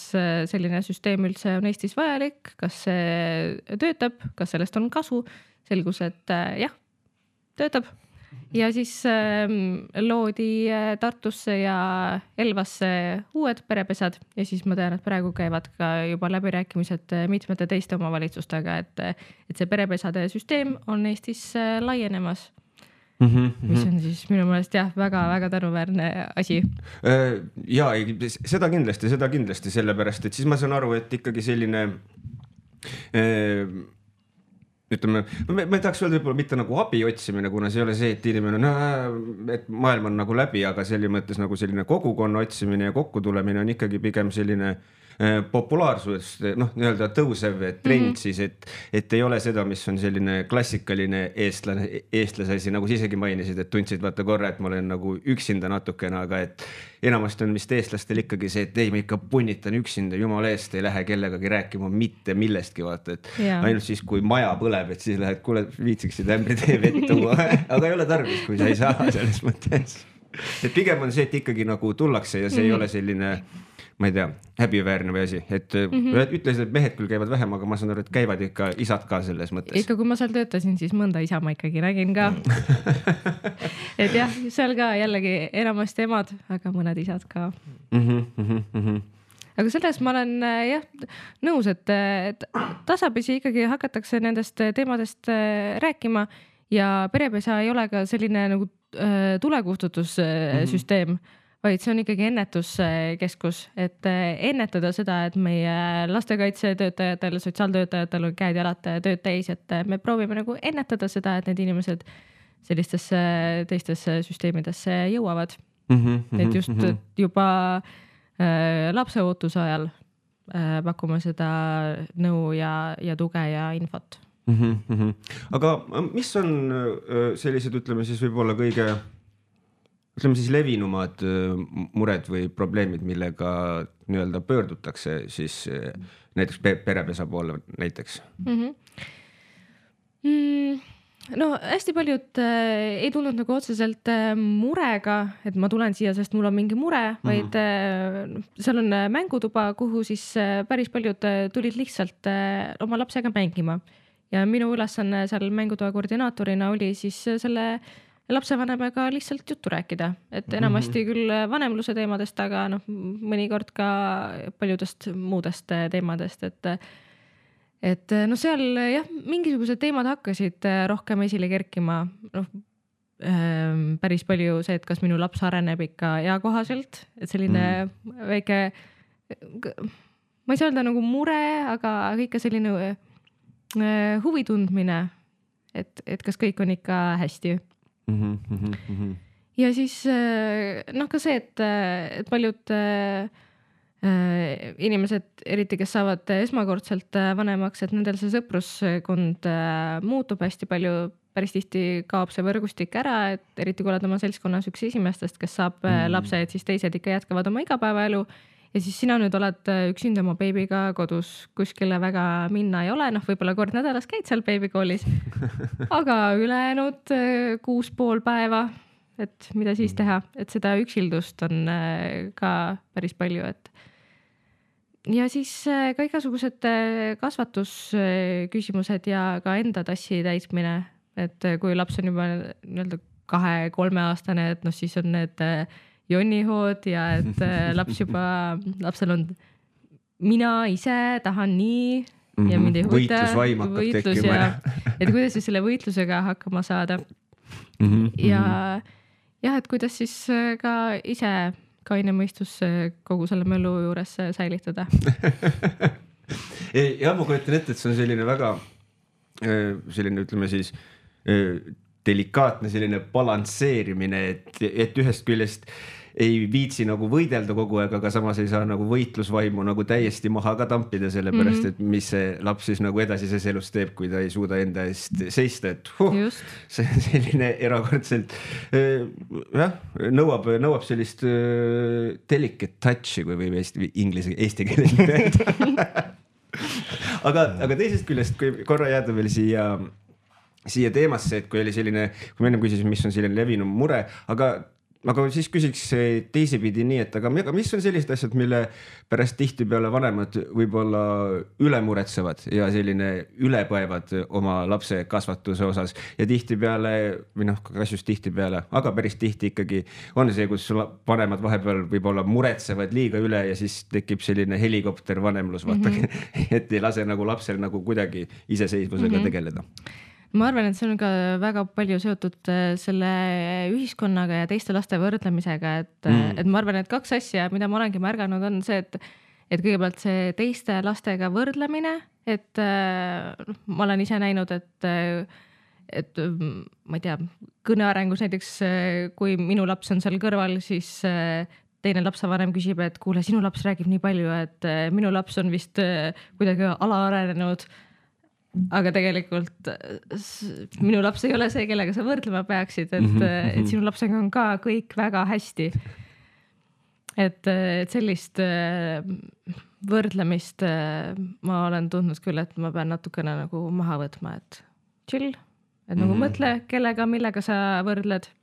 selline süsteem üldse on Eestis vajalik, kas see töötab, kas sellest on kasu. Selgus, et jah, töötab. Ja siis loodi Tartusse ja Elvasse uued perepesad ja siis ma tean, et praegu käivad ka juba läbirääkimised mitmete teiste omavalitsustega, et see perepesade süsteem on Eestis laienemas. Mis on siis minu meelest jah, väga-väga tänuväärne asi. Ja seda kindlasti sellepärast, et siis ma saan aru, et ikkagi selline ütleme, ma ei tahaks öelda võib-olla mitte nagu abi otsimine, kuna see ei ole see, et inimene et maailm on nagu läbi, aga selles mõttes nagu selline kogukonna otsimine ja kokkutulemine on ikkagi pigem selline populaarsus, nii-öelda tõusev trend siis, et ei ole seda, mis on selline klassikaline eestlase asi, nagu sa isegi mainisid, et tundsid vaata korra, et ma olen nagu üksinda natukene, aga et enamasti on vist eestlastel ikkagi see, et ei, ma ikka punnitan üksinda, jumala eest ei lähe kellegagi rääkima mitte millestki, vaata, et ainult siis, kui maja põleb, et siis lähed, kuule, viitsiksid ämbritee vett tuua, aga ei ole tarvis, kui sa ei saa selles mõttes. Et pigem on see, et ikkagi nagu tullakse ja see ei ole selline, ma ei tea, häbiväärne või asi, et ütlesid, et mehed küll käivad vähem, aga ma saan aru, et käivad ikka isad ka selles mõttes. Ikka kui ma seal töötasin, siis mõnda isa ma ikkagi nägin ka. Et jah, seal ka jällegi enamasti emad, aga mõned isad ka. Aga selles ma olen jah nõus, et tasapisi ikkagi hakatakse nendest teemadest rääkima ja perepesa ei ole ka selline nagu tulekustutussüsteem, vaid see on ikkagi ennetuskeskus, et ennetada seda, et meie lastekaitsetöötajatel, sotsiaaltöötajatel on käed jalad tööd täis, et me proovime nagu ennetada seda, et need inimesed sellistesse teistesse süsteemidesse jõuavad. Et just juba lapseootuse ajal pakume seda nõu ja tuge ja infot. Aga mis on sellised, ütleme siis võib-olla kõige levinumad mured või probleemid, millega nii-öelda pöördutakse siis näiteks perepesa poole näiteks? no hästi paljud ei tulnud nagu otseselt murega, et ma tulen siia, sest mul on mingi mure, vaid seal on mängutuba, kuhu siis päris paljud tulid lihtsalt oma lapsega mängima. Ja minu ülesanne seal mängutoa koordinaatorina oli siis selle lapsevanemaga lihtsalt juttu rääkida, et enamasti küll vanemluse teemadest, aga mõnikord ka paljudest muudest teemadest, et no seal jah, mingisugused teemad hakkasid rohkem esile kerkima. Päris palju see, et kas minu laps areneb ikka eakohaselt, et selline väike, ma ei saa öelda nagu mure, aga ikka selline huvi tundmine, et kas kõik on ikka hästi. Ja siis ka see, et paljud inimesed, eriti kes saavad esmakordselt vanemaks, et nendel see sõpruskond muutub hästi palju, päris tihti kaob see võrgustik ära, et eriti kui oled oma seltskonnas üks esimestest, kes saab lapse, et siis teised ikka jätkavad oma igapäevaelu ja siis sina nüüd oled üksinda oma beebiga kodus, kuskile väga minna ei ole, võib-olla kord nädalas käid seal beebikoolis, aga ülejäänud 6,5 päeva, et mida siis teha, et seda üksildust on ka päris palju, et ja siis ka igasugused kasvatusküsimused ja ka enda tassi täitmine, et kui laps on juba 2-3 aastane, et siis on need jonnihood ja et lapsel on mina ise tahan nii ja mind ei huvita võitlus ja et kuidas siis selle võitlusega hakkama saada ja jah, et kuidas siis ka ise kaine mõistus kogu selle möllu juures säilitada. Ja ma kujutan ette, et see on selline väga selline, ütleme siis delikaatne selline balansseerimine, et ühest küljest ei viitsi nagu võidelda kogu aeg, aga samas ei saa nagu võitlusvaimu nagu täiesti maha ka tampida, sellepärast, et mis see laps siis nagu edasises elus teeb, kui ta ei suuda enda eest seista, et see on selline erakordselt nõuab sellist delicate touch'i, kui võib eesti keeles öelda. Aga teisest küljest, kui korra jääda veel siia teemasse, et kui oli selline, kui me enne küsisin, mis on selline levinum mure, aga siis küsiks teisipidi nii, et aga mis on sellised asjad, mille pärast tihtipeale vanemad võib-olla üle muretsevad ja selline ülepõevad oma lapse kasvatuse osas ja tihtipeale, või kas just tihtipeale, aga päris tihti ikkagi on see, kus vanemad vahepeal võib-olla muretsevad liiga üle ja siis tekib selline helikopter vanemlus, et ei lase nagu lapsel nagu kuidagi iseseisvusega tegeleda. Ma arvan, et see on ka väga palju seotud selle ühiskonnaga ja teiste laste võrdlemisega, et ma arvan, et 2 asja, mida ma olengi märganud, on see, et kõigepealt see teiste lastega võrdlemine, et ma olen ise näinud, et ma ei tea, kõnearengus näiteks, kui minu laps on seal kõrval, siis teine lapsevanem küsib, et kuule, sinu laps räägib nii palju, et minu laps on vist kuidagi alaarenenud. Aga tegelikult minu laps ei ole see, kellega sa võrdlema peaksid, et sinu lapsega on ka kõik väga hästi. Et sellist võrdlemist ma olen tundnud küll, et ma pean natukene nagu maha võtma, et chill, et nagu mõtle, kellega, millega sa võrdled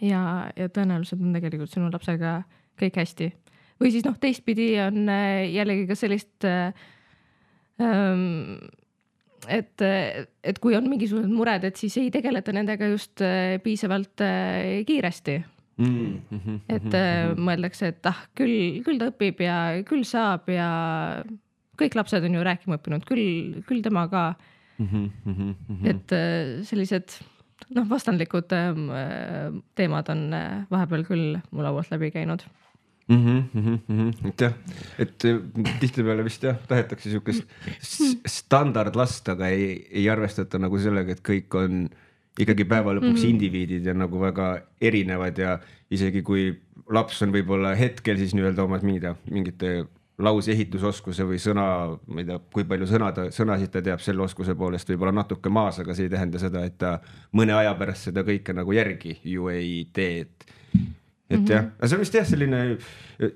ja tõenäoliselt on tegelikult sinu lapsega kõik hästi. Või siis teistpidi on jällegi ka sellist et kui on mingisugused mured, et siis ei tegeleta nendega just piisavalt kiiresti. Et mõeldakse, et küll ta õpib ja küll saab ja kõik lapsed on ju rääkima õppinud, küll tema ka. Et sellised vastandlikud teemad on vahepeal küll mu laualt läbi käinud. Et tihtipeale vist tahetakse siukest standardlast, aga ei arvestata nagu sellega, et kõik on ikkagi päeva lõpuks indiviidid ja nagu väga erinevad ja isegi kui laps on võib-olla hetkel siis nii-öelda omad mingite lause ehitusoskuse või sõna, ma ei tea, kui palju sõnasid ta teab selle oskuse poolest võib-olla natuke maas, aga see ei tähenda seda, et ta mõne aja pärast seda kõike nagu järgi ju ei tee, et et jah, see on vist jah selline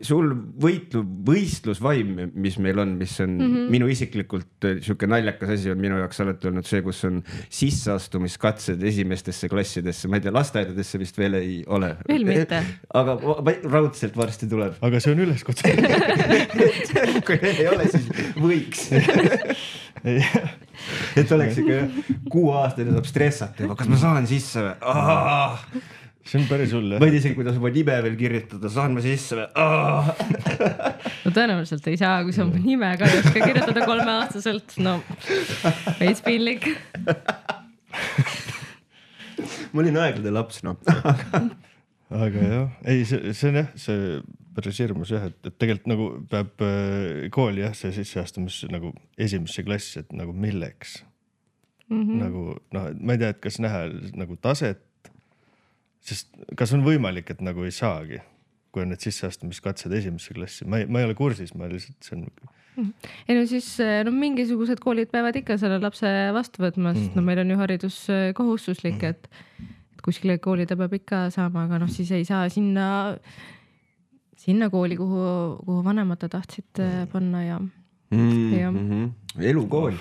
sul võistlusvaim, mis meil on, mis on minu isiklikult siuke naljakas asi on minu jaoks alati olnud see, kus on sisseastumiskatsed esimestesse klassidesse, ma ei tea, lasteaedadesse vist veel ei ole. Veel mitte. Aga raudselt varsti tuleb. Aga see on üleskutse. Kui ei ole, siis võiks. Et oleks ikka 6 aastane saab stressata, kas ma saan sisse või? See on päris hull, jah. Ma ei tea, kuidas oma nime veel kirjutada, saan ma sisse või? No tõenäoliselt ei saa, kui sa oma nime ka ei oska kirjutada 3-aastaselt. No, veits piinlik. Ma olin aeglade laps, no. Aga jah, ei, see on jah, see päris hirmus jah, et tegelikult nagu peab kooli jah, see sisseastumis nagu esimesse klassi, et nagu milleks. Nagu, no ma ei tea, et kas näha nagu taset, sest kas on võimalik, et nagu ei saagi, kui on need sisseastumiskatsed esimesse klassi. Ma ei ole kursis, ma lihtsalt see on... Ei no siis mingisugused koolid peavad ikka selle lapse vastu võtma, sest no meil on ju haridus kohustuslik, et kuskile kooli ta peab ikka saama, aga noh, siis ei saa sinna kooli, kuhu vanemad tahtsid panna ja... Elukool.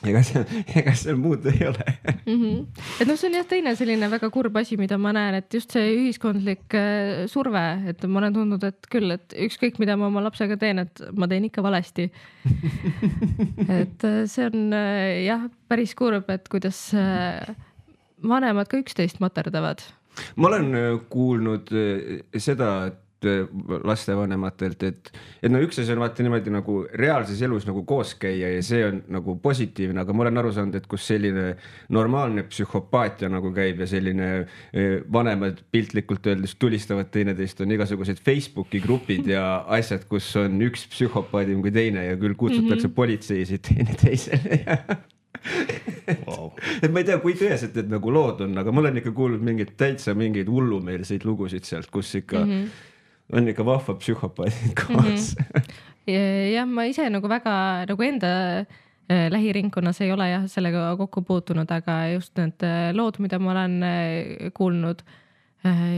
Ega seal muud ei ole. Et noh, see on jah teine selline väga kurb asi, mida ma näen, et just see ühiskondlik surve, et ma olen tundnud, et küll, et ükskõik mida ma oma lapsega teen, et ma teen ikka valesti. Et see on jah päris kurb, et kuidas vanemad ka üksteist materdavad. Ma olen kuulnud seda, et lastevanematelt, et no üks asi on vaata niimoodi nagu reaalses elus nagu koos käia ja see on nagu positiivne, aga ma olen aru saanud, et kus selline normaalne psühhopaatia nagu käib ja selline vanemad piltlikult öeldes tulistavad teineteist, on igasugused Facebooki grupid ja asjad, kus on üks psühhopaadim kui teine ja küll kutsutakse politseisid teineteisele ja wow. Et ma ei tea, kui tõeselt need nagu lood on, aga ma olen ikka kuulnud mingeid hullumeelseid lugusid sealt, kus ikka on ikka vahva psühhopaadid koos. Jah, ma ise nagu väga nagu enda lähiringkonnas ei ole jah sellega kokku puutunud, aga just need lood, mida ma olen kuulnud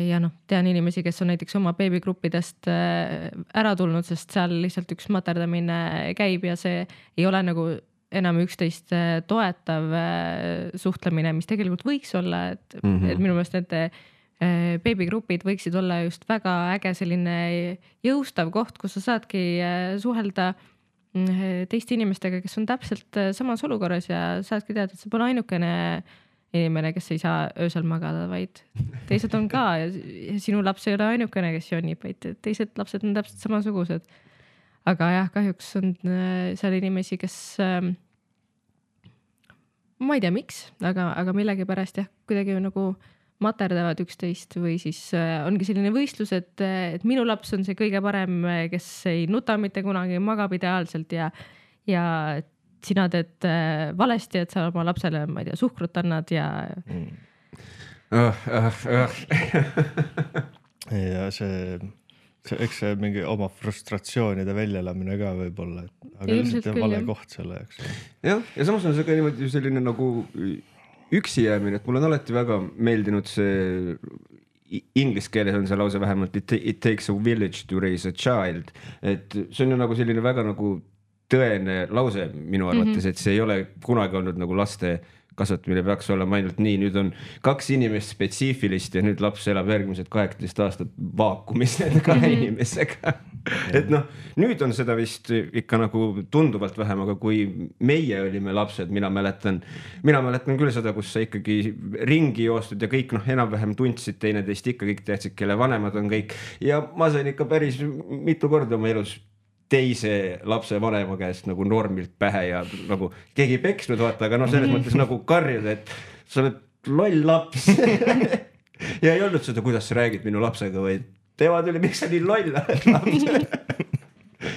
ja noh, tean inimesi, kes on näiteks oma beebigruppidest ära tulnud, sest seal lihtsalt üks materdamine käib ja see ei ole nagu enam üksteist toetav suhtlemine, mis tegelikult võiks olla, et minu meelest need beebigrupid võiksid olla just väga äge selline jõustav koht, kus sa saadki suhelda teiste inimestega, kes on täpselt samas olukorras ja saadki teada, et see pole ainukene inimene, kes ei saa öösel magada, vaid teised on ka ja sinu laps ei ole ainukene, kes jonnib, vaid teised lapsed on täpselt samasugused. Aga jah, kahjuks on seal inimesi, kes ma ei tea miks, aga millegipärast jah, kuidagi nagu materdavad üksteist või siis ongi selline võistlus, et minu laps on see kõige parem, kes ei nuta mitte kunagi, magab ideaalselt ja sina teed valesti, et sa oma lapsele, ma ei tea, suhkrut annad ja... Ja eks see mingi oma frustratsioonide väljalamine ka võib olla, aga lihtsalt vale koht selle jaoks. Ja samas on see ka niimoodi selline nagu üksi jäämine, et mul on alati väga meeldinud see, inglise keeles on see lause vähemalt, it takes a village to raise a child, et see on ju nagu selline väga nagu tõene lause minu arvates, et see ei ole kunagi olnud nagu laste kasvatamine peaks olema ainult nii, nüüd on 2 inimest spetsiifilist ja nüüd laps elab järgmised 18 aastat vaakumis nende 2 inimesega. Et noh, nüüd on seda vist ikka nagu tunduvalt vähem, aga kui meie olime lapsed, mina mäletan küll seda, kus sa ikkagi ringi joostud ja kõik enam-vähem tundsid teineteist, ikka kõik teadsid, kelle vanemad on kõik ja ma sain ikka päris mitu korda oma elus teise lapse vanema käest nagu normilt pähe ja nagu keegi peksnud vaata, aga selles mõttes nagu karjud, et sa oled loll laps ja ei olnud seda, kuidas sa räägid minu lapsega, vaid tema tuli, miks sa nii loll oled laps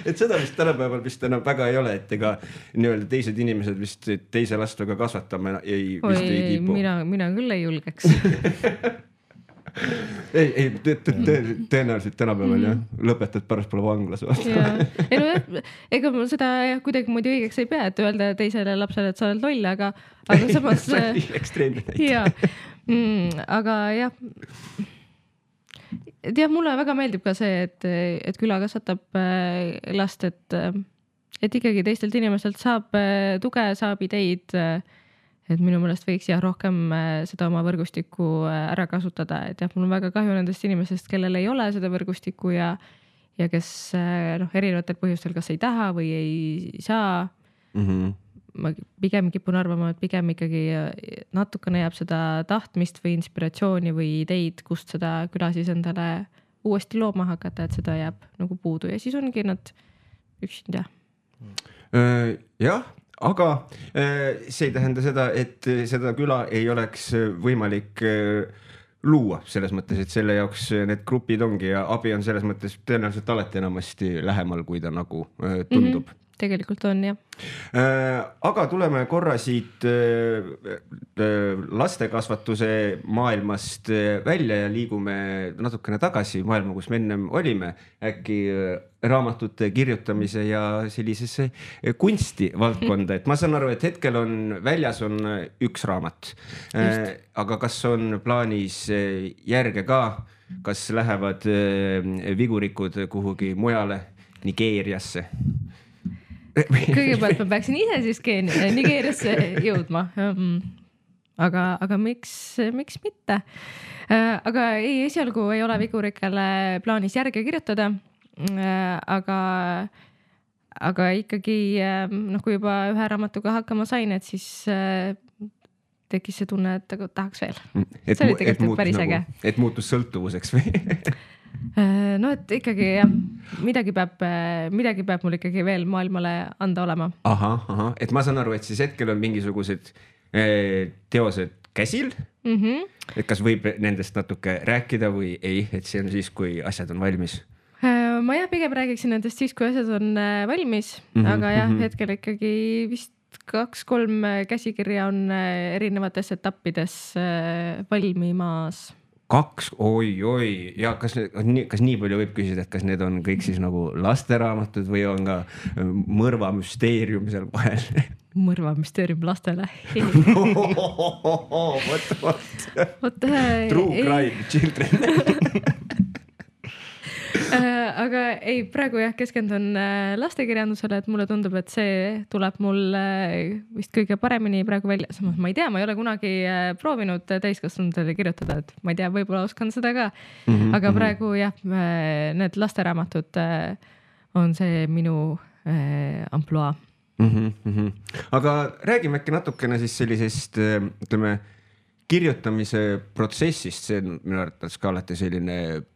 et seda vist tänapäeval vist enam väga ei ole, et ega nii-öelda teised inimesed vist teise lastega kasvatama ei kipu. Mina küll ei julgeks ei, tõenäoliselt tänapäeval jah, lõpetad pärast pole vanglas ega ma seda kuidagi muidu õigeks ei pea, et öelda teisele lapsele, et sa oled loll, aga samas ekstreemne näite. Aga jah et jah, mulle väga meeldib ka see, et küla kasvatab last, et ikkagi teistelt inimestelt saab tuge, saab ideid, et minu meelest võiks jah rohkem seda oma võrgustikku ära kasutada, et jah, mul on väga kahju nendest inimestest, kellel ei ole seda võrgustikku ja kes erinevatel põhjustel kas ei taha või ei saa. Ma pigem kipun arvama, et pigem ikkagi natukene jääb seda tahtmist või inspiratsiooni või ideid, kust seda küla siis endale uuesti looma hakata, et seda jääb nagu puudu ja siis ongi nad üksinda. Jah, aga see ei tähenda seda, et seda küla ei oleks võimalik luua selles mõttes, et selle jaoks need grupid ongi ja abi on selles mõttes tõenäoliselt alati enamasti lähemal, kui ta nagu tundub. Tegelikult on, jah. Aga tuleme korra siit lastekasvatuse maailmast välja ja liigume natukene tagasi maailma, kus me ennem olime, äkki raamatute kirjutamise ja sellisesse kunstivaldkonda. Et ma saan aru, et hetkel on väljas on üks raamat, aga kas on plaanis järge ka, kas lähevad vigurikud kuhugi mujale, Nigeeriasse? Kõigepealt ma peaksin ise siis Nigeeriasse jõudma. Aga miks mitte? Aga ei, esialgu ei ole vigurikele plaanis järge kirjutada. Aga ikkagi, kui juba ühe raamatuga hakkama sain, et siis tekkis see tunne, et tahaks veel. See oli tegelikult päris äge. Et muutus sõltuvuseks või? No, et ikkagi jah, midagi peab mul ikkagi veel maailmale anda olema. Aha, et ma saan aru, et siis hetkel on mingisugused teosed käsil, et kas võib nendest natuke rääkida või ei, et see on siis, kui asjad on valmis? Ma jah, pigem räägiksin nendest siis, kui asjad on valmis, aga jah, hetkel ikkagi vist 2-3 käsikirja on erinevates etappides valmimas. 2, oi, ja kas nii palju võib küsida, et kas need on kõik siis nagu lasteraamatud või on ka mõrvamüsteerium seal vahel? Mõrvamüsteerium lastele. True crime children. Aga ei, praegu jah, keskendun lastekirjandusele, et mulle tundub, et see tuleb mul vist kõige paremini praegu välja. Samas ma ei tea, ma ei ole kunagi proovinud täiskasvanutele kirjutada, et ma ei tea, võib-olla oskan seda ka. Aga praegu jah, need lasteraamatud on see minu amploa. Aga räägime äkki natukene siis sellisest, ütleme, kirjutamise protsessist, see on minu arvates ka alati selline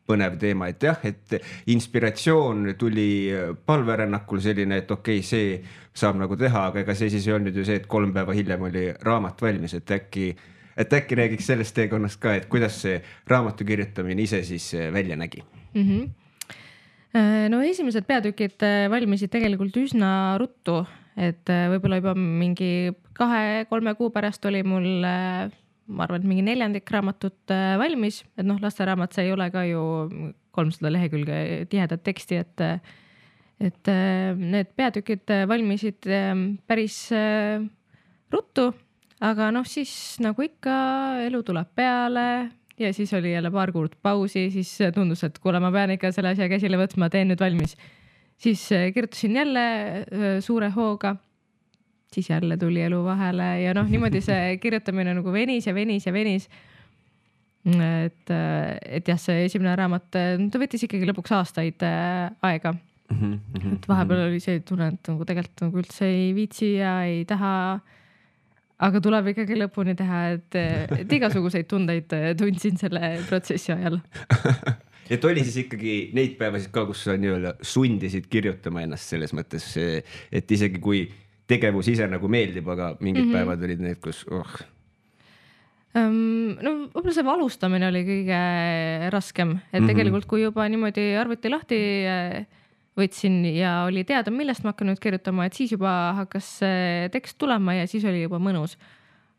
põnev teema, et jah, et inspiratsioon tuli palverännakul selline, et okei, see saab nagu teha, aga ega see siis ei olnud ju see, et 3 päeva hiljem oli raamat valmis, et äkki räägiks sellest teekonnast ka, et kuidas see raamatu kirjutamine ise siis välja nägi? No esimesed peatükid valmisid tegelikult üsna ruttu, et võib-olla juba mingi 2-3 kuu pärast oli mul ma arvan, et mingi 4. raamatut valmis, et lasteraamat, see ei ole ka ju 300 lehekülge tihedat teksti, et need peatükid valmisid päris ruttu, aga siis nagu ikka elu tuleb peale ja siis oli jälle paar kuud pausi, siis tundus, et kuule, ma pean ikka selle asja käsile võtma, teen nüüd valmis. Siis kirjutasin jälle suure hooga. Siis jälle tuli elu vahele ja niimoodi see kirjutamine nagu venis. Et jah, see esimene raamat, ta võttis ikkagi lõpuks aastaid aega. Et vahepeal oli see tunne, et nagu tegelikult nagu üldse ei viitsi ja ei taha, aga tuleb ikkagi lõpuni teha, et igasuguseid tundeid tundsin selle protsessi ajal. Et oli siis ikkagi neid päevasid ka, kus sa nii-öelda sundisid kirjutama ennast selles mõttes, et isegi kui tegevus ise nagu meeldib, aga mingid päevad olid need, kus No võib-olla see alustamine oli kõige raskem, et tegelikult kui juba niimoodi arvuti lahti võtsin ja oli teada, millest ma hakkan nüüd kirjutama, et siis juba hakkas tekst tulema ja siis oli juba mõnus.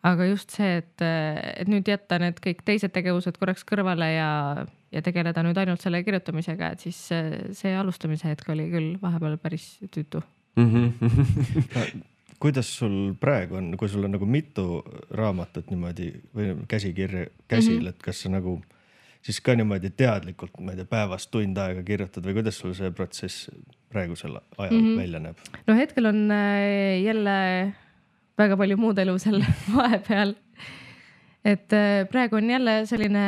Aga just see, et nüüd jätta need kõik teised tegevused korraks kõrvale ja tegeleda nüüd ainult selle kirjutamisega, et siis see alustamise hetk oli küll vahepeal päris tüütu. Kuidas sul praegu on, kui sul on nagu mitu raamatut niimoodi või käsikirja käsil, et kas sa nagu siis ka niimoodi teadlikult, ma ei tea, päevast tund aega kirjutad või kuidas sul see protsess praegusel ajal välja näeb? No hetkel on jälle väga palju muud elu seal vahepeal. Et praegu on jälle selline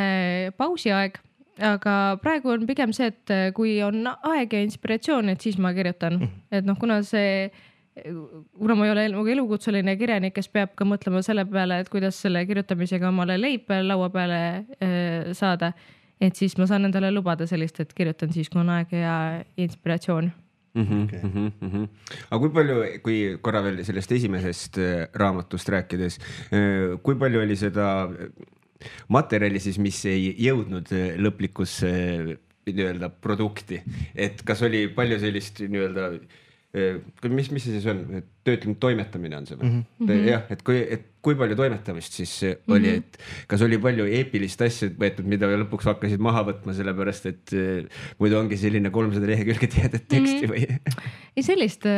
pausiaeg, aga praegu on pigem see, et kui on aeg ja inspiratsioon, et siis ma kirjutan. Et noh, kuna ma ei ole elukutseline kirjanik, kes peab ka mõtlema selle peale, et kuidas selle kirjutamisega omale leib laua peale saada, et siis ma saan endale lubada sellist, et kirjutan siis, kui on aeg ja inspiratsioon. Aga kui palju, kui korra veel sellest esimesest raamatust rääkides, kui palju oli seda materjali siis, mis ei jõudnud lõplikusse nii-öelda produkti, et kas oli palju sellist nii-öelda, mis see siis on, töötlenud toimetamine on see või? Jah, et kui palju toimetamist siis oli, et kas oli palju eepilist asja võetud, mida lõpuks hakkasid maha võtma, sellepärast et muidu ongi selline 300 lehekülge tihedat teksti või? Ei, sellist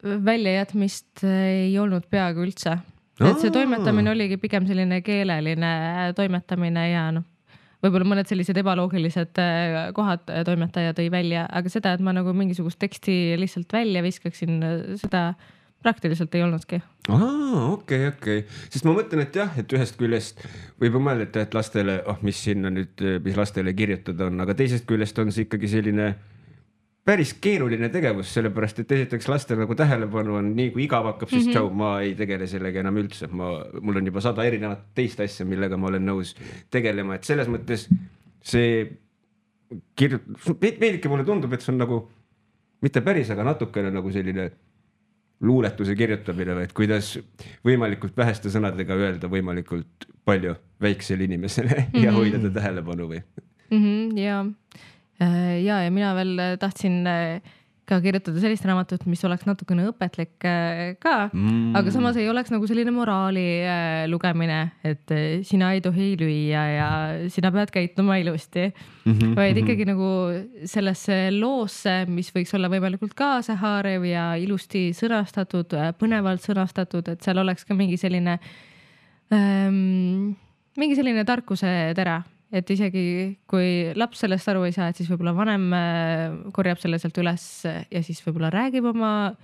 väljajätmist ei olnud peaaegu üldse. Et see toimetamine oligi pigem selline keeleline toimetamine ja võib-olla mõned sellised ebaloogilised kohad toimetaja tõi välja, aga seda, et ma nagu mingisugust teksti lihtsalt välja viskaksin, seda praktiliselt ei olnudki. Okei. Sest ma mõtlen, et jah, et ühest küljest võib mõelda, et lastele, mis sinna nüüd, mis lastele kirjutada on, aga teisest küljest on see ikkagi selline päris keeruline tegevus, sellepärast, et esiteks lastel nagu tähelepanu on nii, kui igav hakkab, siis tšau, ma ei tegele sellega enam üldse. Mul on juba 100 erinevat teist asja, millega ma olen nõus tegelema, et selles mõttes see veidike mulle tundub, et see on nagu mitte päris, aga natukene nagu selline luuletuse kirjutamine, et kuidas võimalikult väheste sõnadega öelda võimalikult palju väiksele inimesele ja hoida ta tähelepanu või? Ja mina veel tahtsin ka kirjutada sellist raamatut, mis oleks natukene õpetlik ka, aga samas ei oleks nagu selline moraali lugemine, et sina ei tohi lüüa ja sina pead käituma ilusti, vaid ikkagi nagu sellesse loosse, mis võiks olla võimalikult kaasahaarev ja ilusti sõnastatud, põnevalt sõnastatud, et seal oleks ka mingi selline tarkuse tera. Et isegi kui laps sellest aru ei saa, et siis võib-olla vanem korjab selle sealt üles ja siis võib-olla räägib oma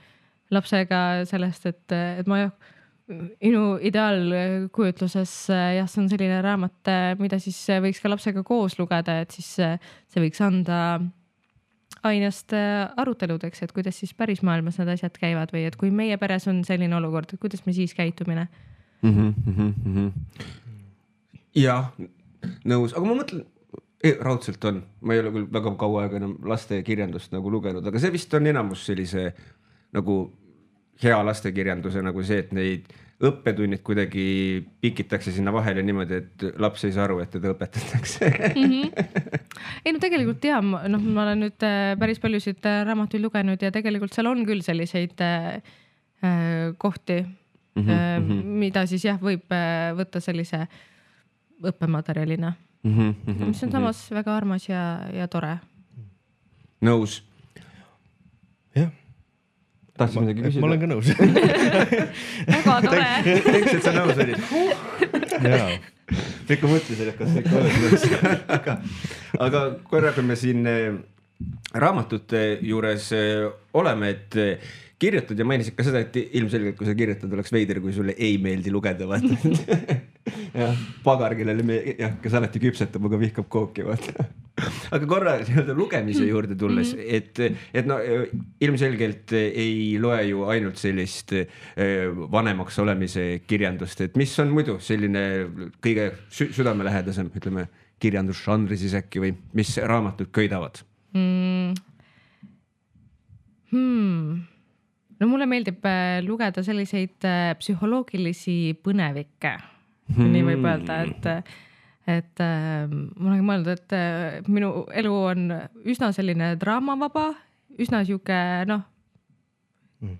lapsega sellest, et minu ideaalkujutluses jah, see on selline raamat, mida siis võiks ka lapsega koos lugeda, et siis see võiks anda ainest aruteludeks, et kuidas siis päris maailmas need asjad käivad või et kui meie peres on selline olukord, et kuidas me siis käitumine. Jah, nõus, aga ma mõtlen, raudselt on, ma ei ole küll väga kaua aega enam laste kirjandust nagu lugenud, aga see vist on enamus sellise nagu hea lastekirjanduse nagu see, et neid õppetunnid kuidagi pikitakse sinna vahele niimoodi, et laps ei saa aru, et teda õpetatakse. Ei no tegelikult jah, ma olen nüüd päris paljusid raamatuid lugenud ja tegelikult seal on küll selliseid kohti, mida siis jah, võib võtta sellise õppematerjalina, mis on samas väga armas ja tore. Nõus. Jah. Tahtsin midagi küsida? Ma olen ka nõus. Väga tore. Teks, et sa nõus olid. Jaa. Ikka mõtlesin, et kas ikka oled nõus. Aga korra, kui me siin raamatute juures oleme, et kirjutad ja mainisid ka seda, et ilmselgelt, kui sa kirjutad, oleks veider, kui sulle ei meeldi lugeda, vaata. Ja, pagar, kellele kes alati küpsetab, aga vihkab kooki, vaata. Aga korra lugemise juurde tulles, et ilmselgelt ei loe ju ainult sellist vanemaks olemise kirjandust, et mis on muidu selline kõige südamelähedasem, ütleme, kirjandusžanri siis äkki või mis raamatud köidavad? No mulle meeldib lugeda selliseid psühholoogilisi põnevikke, nii võib öelda, et ma olen mõelnud, et minu elu on üsna selline draamavaba, üsna siuke,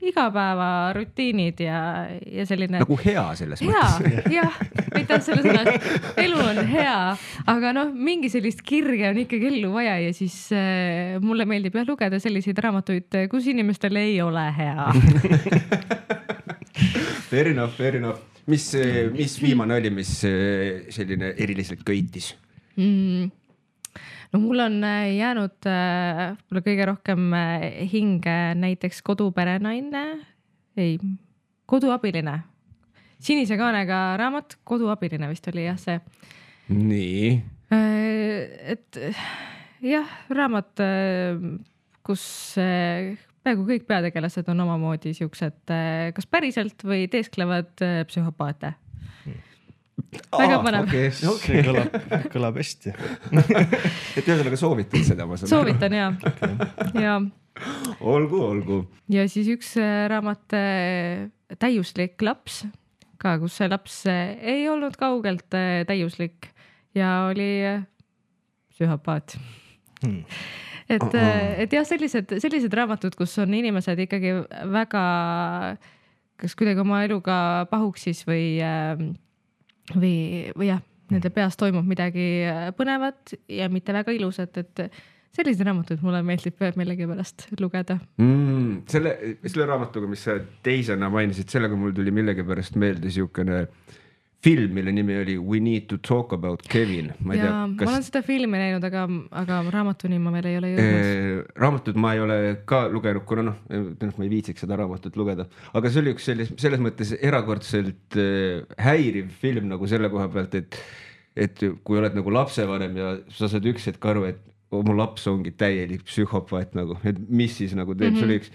igapäeva rutiinid ja selline. Nagu hea selles mõttes. Jah, aitäh selle sõna. Elu on hea, aga mingi sellist kirge on ikkagi ellu vaja ja siis mulle meeldib lugeda selliseid raamatuid, kus inimestel ei ole hea. Fair enough. Mis viimane oli, mis selline eriliselt köitis? No mul on jäänud mulle kõige rohkem hinge näiteks Koduperenaine, Koduabiline. Sinise kaanega raamat, Koduabiline vist oli jah see. Nii. Et jah, raamat, kus peaaegu kõik peategelased on omamoodi siuksed kas päriselt või teesklevad psühhopaate. Väga põnev. Okay. See kõlab hästi. Et ühesõnaga soovitad seda, ma saan Soovitan jah. Ja. Olgu. Ja siis üks raamat Täiuslik laps, ka kus see laps ei olnud kaugelt täiuslik ja oli psühhopaat. Et jah, sellised raamatud, kus on inimesed ikkagi väga kas kuidagi oma eluga pahuksis või jah, nende peas toimub midagi põnevat ja mitte väga ilusat, et sellised raamatud mulle meeldib millegipärast lugeda. Selle raamatuga, mis sa teisena mainisid, sellega mul tuli millegipärast meelde siukene film, mille nimi oli We Need to Talk About Kevin. Ma olen seda filmi näinud, aga raamatuni ma veel ei ole jõudnud. Raamatut ma ei ole ka lugenud, kuna ma ei viitsiks seda raamatut lugeda. Aga see oli üks selles mõttes erakordselt häiriv film nagu selle koha pealt, et kui oled nagu lapsevanem ja sa saad üks hetk aru, et mu laps ongi täielik psühhopaat nagu, et mis siis nagu teeb, see oli üks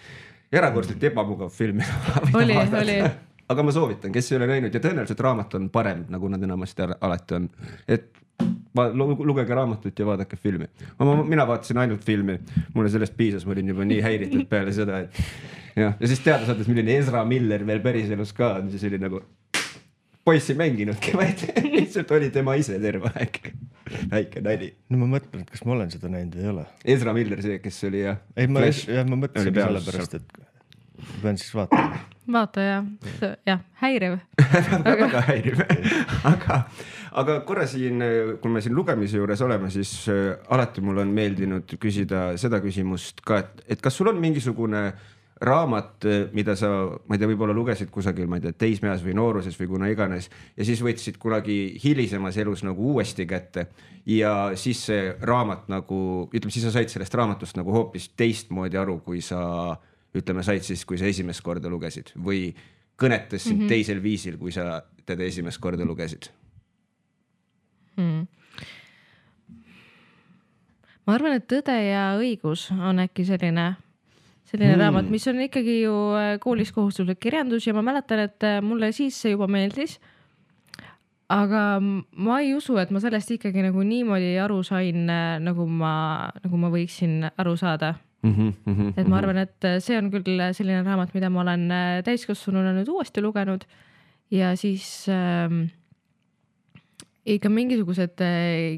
erakordselt ebamugav film. Oli. Aga ma soovitan, kes ei ole näinud ja tõenäoliselt raamat on parem, nagu nad enamasti alati on. Et lugege raamatut ja vaadake filmi. Mina vaatasin ainult filmi, mulle sellest piisas, ma olin juba nii häiritud peale seda, et ja siis teada saades, milline Ezra Miller veel päriselus ka on, siis oli nagu poissi mänginudki, vaid lihtsalt oli tema ise terve aeg. Väike nali. No ma mõtlen, et kas ma olen seda näinud või ei ole. Ezra Miller see, kes oli ja... Ei, ma mõtlesin selle pärast, et pean siis vaatama. Vaata jah, häiriv. Väga häiriv. Aga korra siin, kui me siin lugemise juures oleme, siis alati mul on meeldinud küsida seda küsimust ka, et kas sul on mingisugune raamat, mida sa, ma ei tea, võib-olla lugesid kusagil, ma ei tea, teismeas või nooruses või kuna iganes ja siis võtsid kunagi hilisemas elus nagu uuesti kätte ja siis see raamat nagu, ütleme, siis sa said sellest raamatust nagu hoopis teistmoodi aru, kui sa ütleme, said siis, kui sa esimest korda lugesid või kõnetas sind teisel viisil, kui sa teda esimest korda lugesid? Ma arvan, et Tõde ja õigus on äkki selline raamat, mis on ikkagi ju koolis kohustuslik kirjandus ja ma mäletan, et mulle siis see juba meeldis. Aga ma ei usu, et ma sellest ikkagi nagu niimoodi aru sain, nagu ma võiksin aru saada. Et ma arvan, et see on küll selline raamat, mida ma olen täiskasvanuna nüüd uuesti lugenud ja siis ikka mingisugused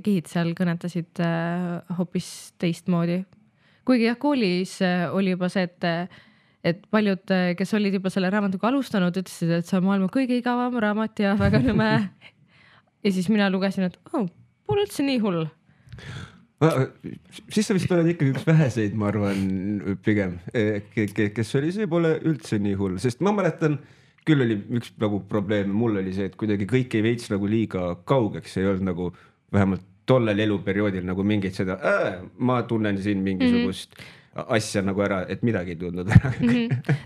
kihid seal kõnetasid hoopis teistmoodi. Kuigi jah, koolis oli juba see, et paljud, kes olid juba selle raamatuga alustanud, ütlesid, et see on maailma kõige igavam raamat ja väga nõme. Ja siis mina lugesin, et pole üldse nii hull. Siis sa vist oled ikkagi üks väheseid, ma arvan, pigem, kes oli, see pole üldse nii hull, sest ma mäletan, küll oli üks nagu probleem, mul oli see, et kuidagi kõik ei veits nagu liiga kaugeks, ei olnud nagu vähemalt tollel eluperioodil nagu mingit seda, ma tunnen siin mingisugust asja nagu ära, et midagi ei tundnud ära.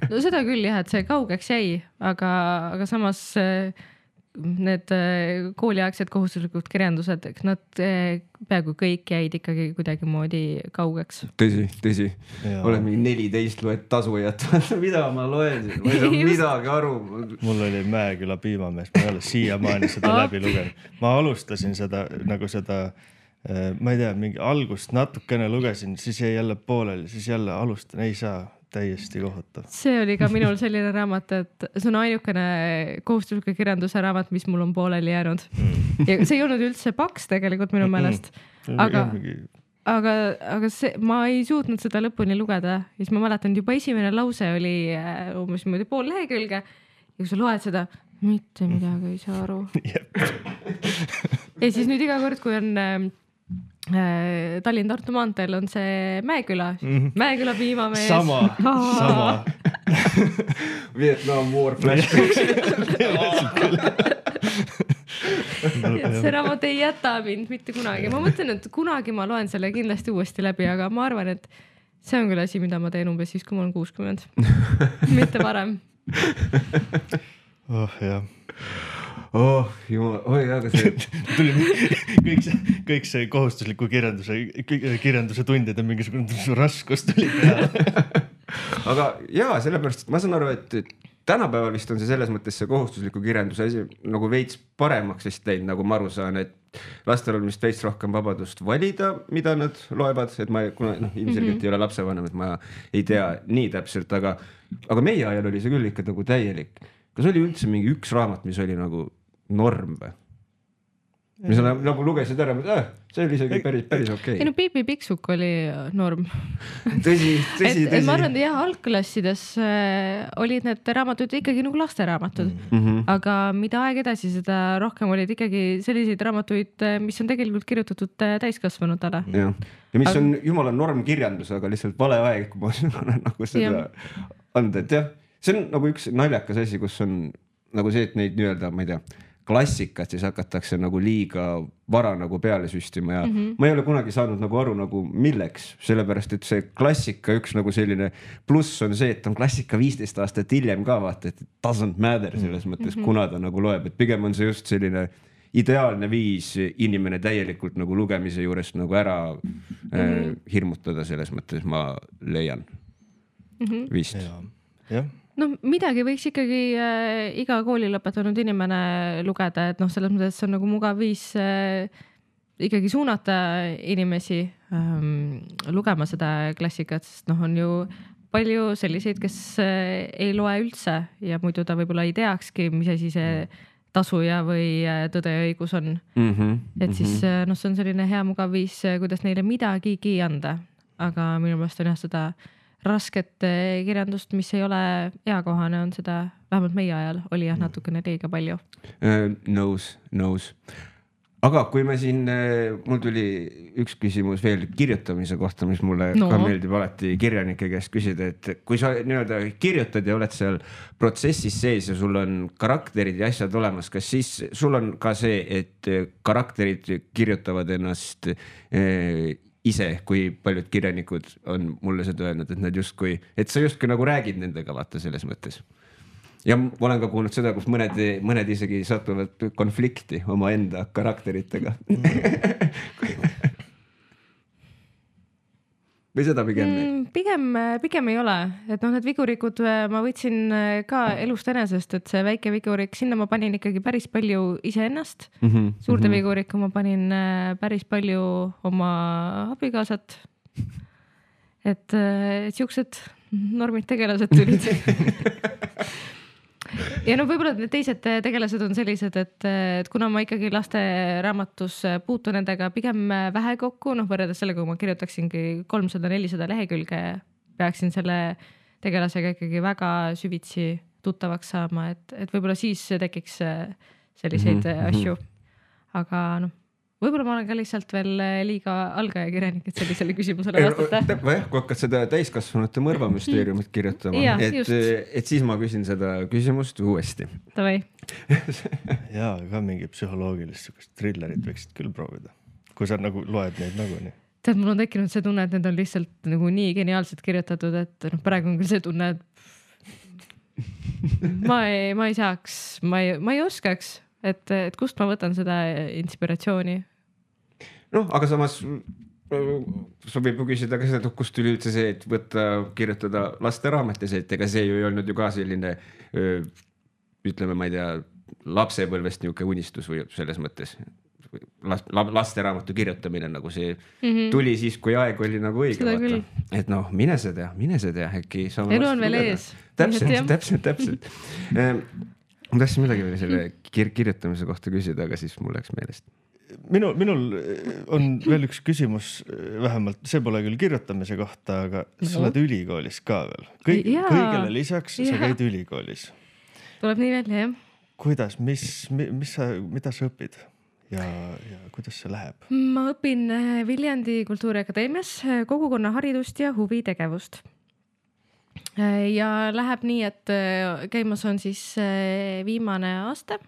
No seda küll jah, et see kaugeks jäi, aga samas need kooliaegsed kohustuslikud kirjandused, nad peaaegu kõik jäid ikkagi kuidagi moodi kaugeks. Tõsi. Olen mingi 14 loed tasujat. Mida ma loen? Ma ei saa midagi aru. Mul oli Mäeküla piimamees, ma ei ole siiamaani seda läbi lugenud. Ma alustasin seda, ma ei tea, mingi algust natukene lugesin, siis jäi jälle pooleli, siis jälle alustan, ei saa. Täiesti kohutav. See oli ka minul selline raamat, et see on ainukene kohustusliku kirjanduse raamat, mis mul on pooleli jäänud. Ja see ei olnud üldse paks tegelikult minu meelest. Aga see, ma ei suutnud seda lõpuni lugeda. Ja siis ma mäletan, juba esimene lause oli umbes pool lehekülge. Ja kui sa loed seda, mitte midagi ei saa aru. Ja siis nüüd iga kord, kui on Tallinn-Tartu maanteel on see Mäeküla. Mäeküla piimamees. Sama. Vietnam War flashbacks. et see raamat ei jäta mind mitte kunagi. Ma mõtlen, et kunagi ma loen selle kindlasti uuesti läbi, aga ma arvan, et see on küll asi, mida ma teen umbes siis, kui ma olen 60. Mitte varem. Jah. Jumal, aga see kõik see kohustusliku kirjanduse tundide mingisugune raskus tuli peale. Aga jaa, sellepärast, et ma saan aru, et tänapäeval vist on see selles mõttes see kohustusliku kirjanduse asi nagu veits paremaks vist teinud, nagu ma aru saan, et lastel on vist veits rohkem vabadust valida, mida nad loevad, et ma ilmselgelt ei ole lapsevanem, et ma ei tea nii täpselt, aga meie ajal oli see küll ikka nagu täielik. Kas oli üldse mingi üks raamat, mis oli nagu norm või? Mis on nagu lugesid ära, see oli isegi päris okei. Ei no Piipi Piksuk oli norm. Tõsi. Ma arvan, et jah, algklassides olid need raamatud ikkagi nagu lasteraamatud, aga mida aeg edasi, seda rohkem olid ikkagi selliseid raamatuid, mis on tegelikult kirjutatud täiskasvanutele. Ja mis on jumala normkirjandus, aga lihtsalt vale aeg, kui ma olen nagu seda anda, et jah, see on nagu üks naljakas asi, kus on nagu see, et neid nii-öelda, ma ei tea, klassikat siis hakatakse nagu liiga vara nagu peale süstima ja ma ei ole kunagi saanud nagu aru nagu milleks, sellepärast et see klassika üks nagu selline pluss on see, et on klassika 15 aastat hiljem ka vaata, et doesn't matter selles mõttes, kuna ta nagu loeb, et pigem on see just selline ideaalne viis inimene täielikult nagu lugemise juurest nagu ära hirmutada selles mõttes, ma leian vist. Jah. No midagi võiks ikkagi iga kooli lõpetanud inimene lugeda, et selles mõttes see on nagu mugav viis ikkagi suunata inimesi lugema seda klassikat, sest on ju palju selliseid, kes ei loe üldse ja muidu ta võib-olla ei teakski, mis asi see tasuja või tõde ja õigus on. Et siis see on selline hea mugav viis, kuidas neile midagigi anda, aga minu meelest on jah seda rasket kirjandust, mis ei ole eakohane, on seda, vähemalt meie ajal oli jah natukene liiga palju. Nõus. Aga kui me siin, mul tuli üks küsimus veel kirjutamise kohta, mis mulle ka meeldib alati kirjanike käest küsida, et kui sa nii-öelda kirjutad ja oled seal protsessis sees ja sul on karakterid ja asjad olemas, kas siis sul on ka see, et karakterid kirjutavad ennast ise, kui paljud kirjanikud on mulle seda öelnud, et nad justkui, et sa justkui nagu räägid nendega vaata selles mõttes. Ja ma olen ka kuulnud seda, kus mõned isegi satuvad konflikti oma enda karakteritega. Või seda pigem? Pigem ei ole, et need vigurikud ma võtsin ka elust enesest, et see väike vigurik, sinna ma panin ikkagi päris palju iseennast. Suurde vigurikku ma panin päris palju oma abikaasat. Et siuksed normid tegelased tulid. Ja võib-olla need teised tegelased on sellised, et kuna ma ikkagi laste raamatus puutun nendega pigem vähe kokku, võrreldes sellega, kui ma kirjutaksingi 300-400 lehekülge, peaksin selle tegelasega ikkagi väga süvitsi tuttavaks saama, et võib-olla siis tekiks selliseid asju. Aga võib-olla ma olen ka lihtsalt veel liiga algaja kirjanik, et sellisele küsimusele vastata. Kui hakkad seda täiskasvanute mõrvamüsteeriumit kirjutama, et siis ma küsin seda küsimust uuesti. Tavai. Jaa, ka mingi psühholoogilist trillerit võiksid küll proovida, kui sa nagu loed neid nii. Tead, mul on tekkinud see tunne, et need on lihtsalt nagu nii geniaalselt kirjutatud, et praegu on küll see tunne, et ma ei saaks, ma ei oskaks, et kust ma võtan seda inspiratsiooni. Aga samas sobib ju küsida ka seda, kust tuli üldse see, et kirjutada lasteraametes, et ega see ju ei olnud ju ka selline, ütleme, ma ei tea, lapsepõlvest niisugune unistus või selles mõttes. Lasteraamatu kirjutamine nagu see tuli siis, kui aeg oli nagu õige. Vaata. Et mine see tea, äkki. Elu on veel ees. Täpselt. Ma tahtsin midagi veel selle kirjutamise kohta küsida, aga siis mul läks meelest. Minul on veel üks küsimus, vähemalt see pole küll kirjutamise kohta, aga sa oled ülikoolis ka veel. Kõigele lisaks sa käid ülikoolis. Tuleb nii välja, jah. Kuidas, mida sa õpid ja kuidas see läheb? Ma õpin Viljandi Kultuuriakadeemias kogukonnaharidust ja huvitegevust. Ja läheb nii, et käimas on siis viimane aasta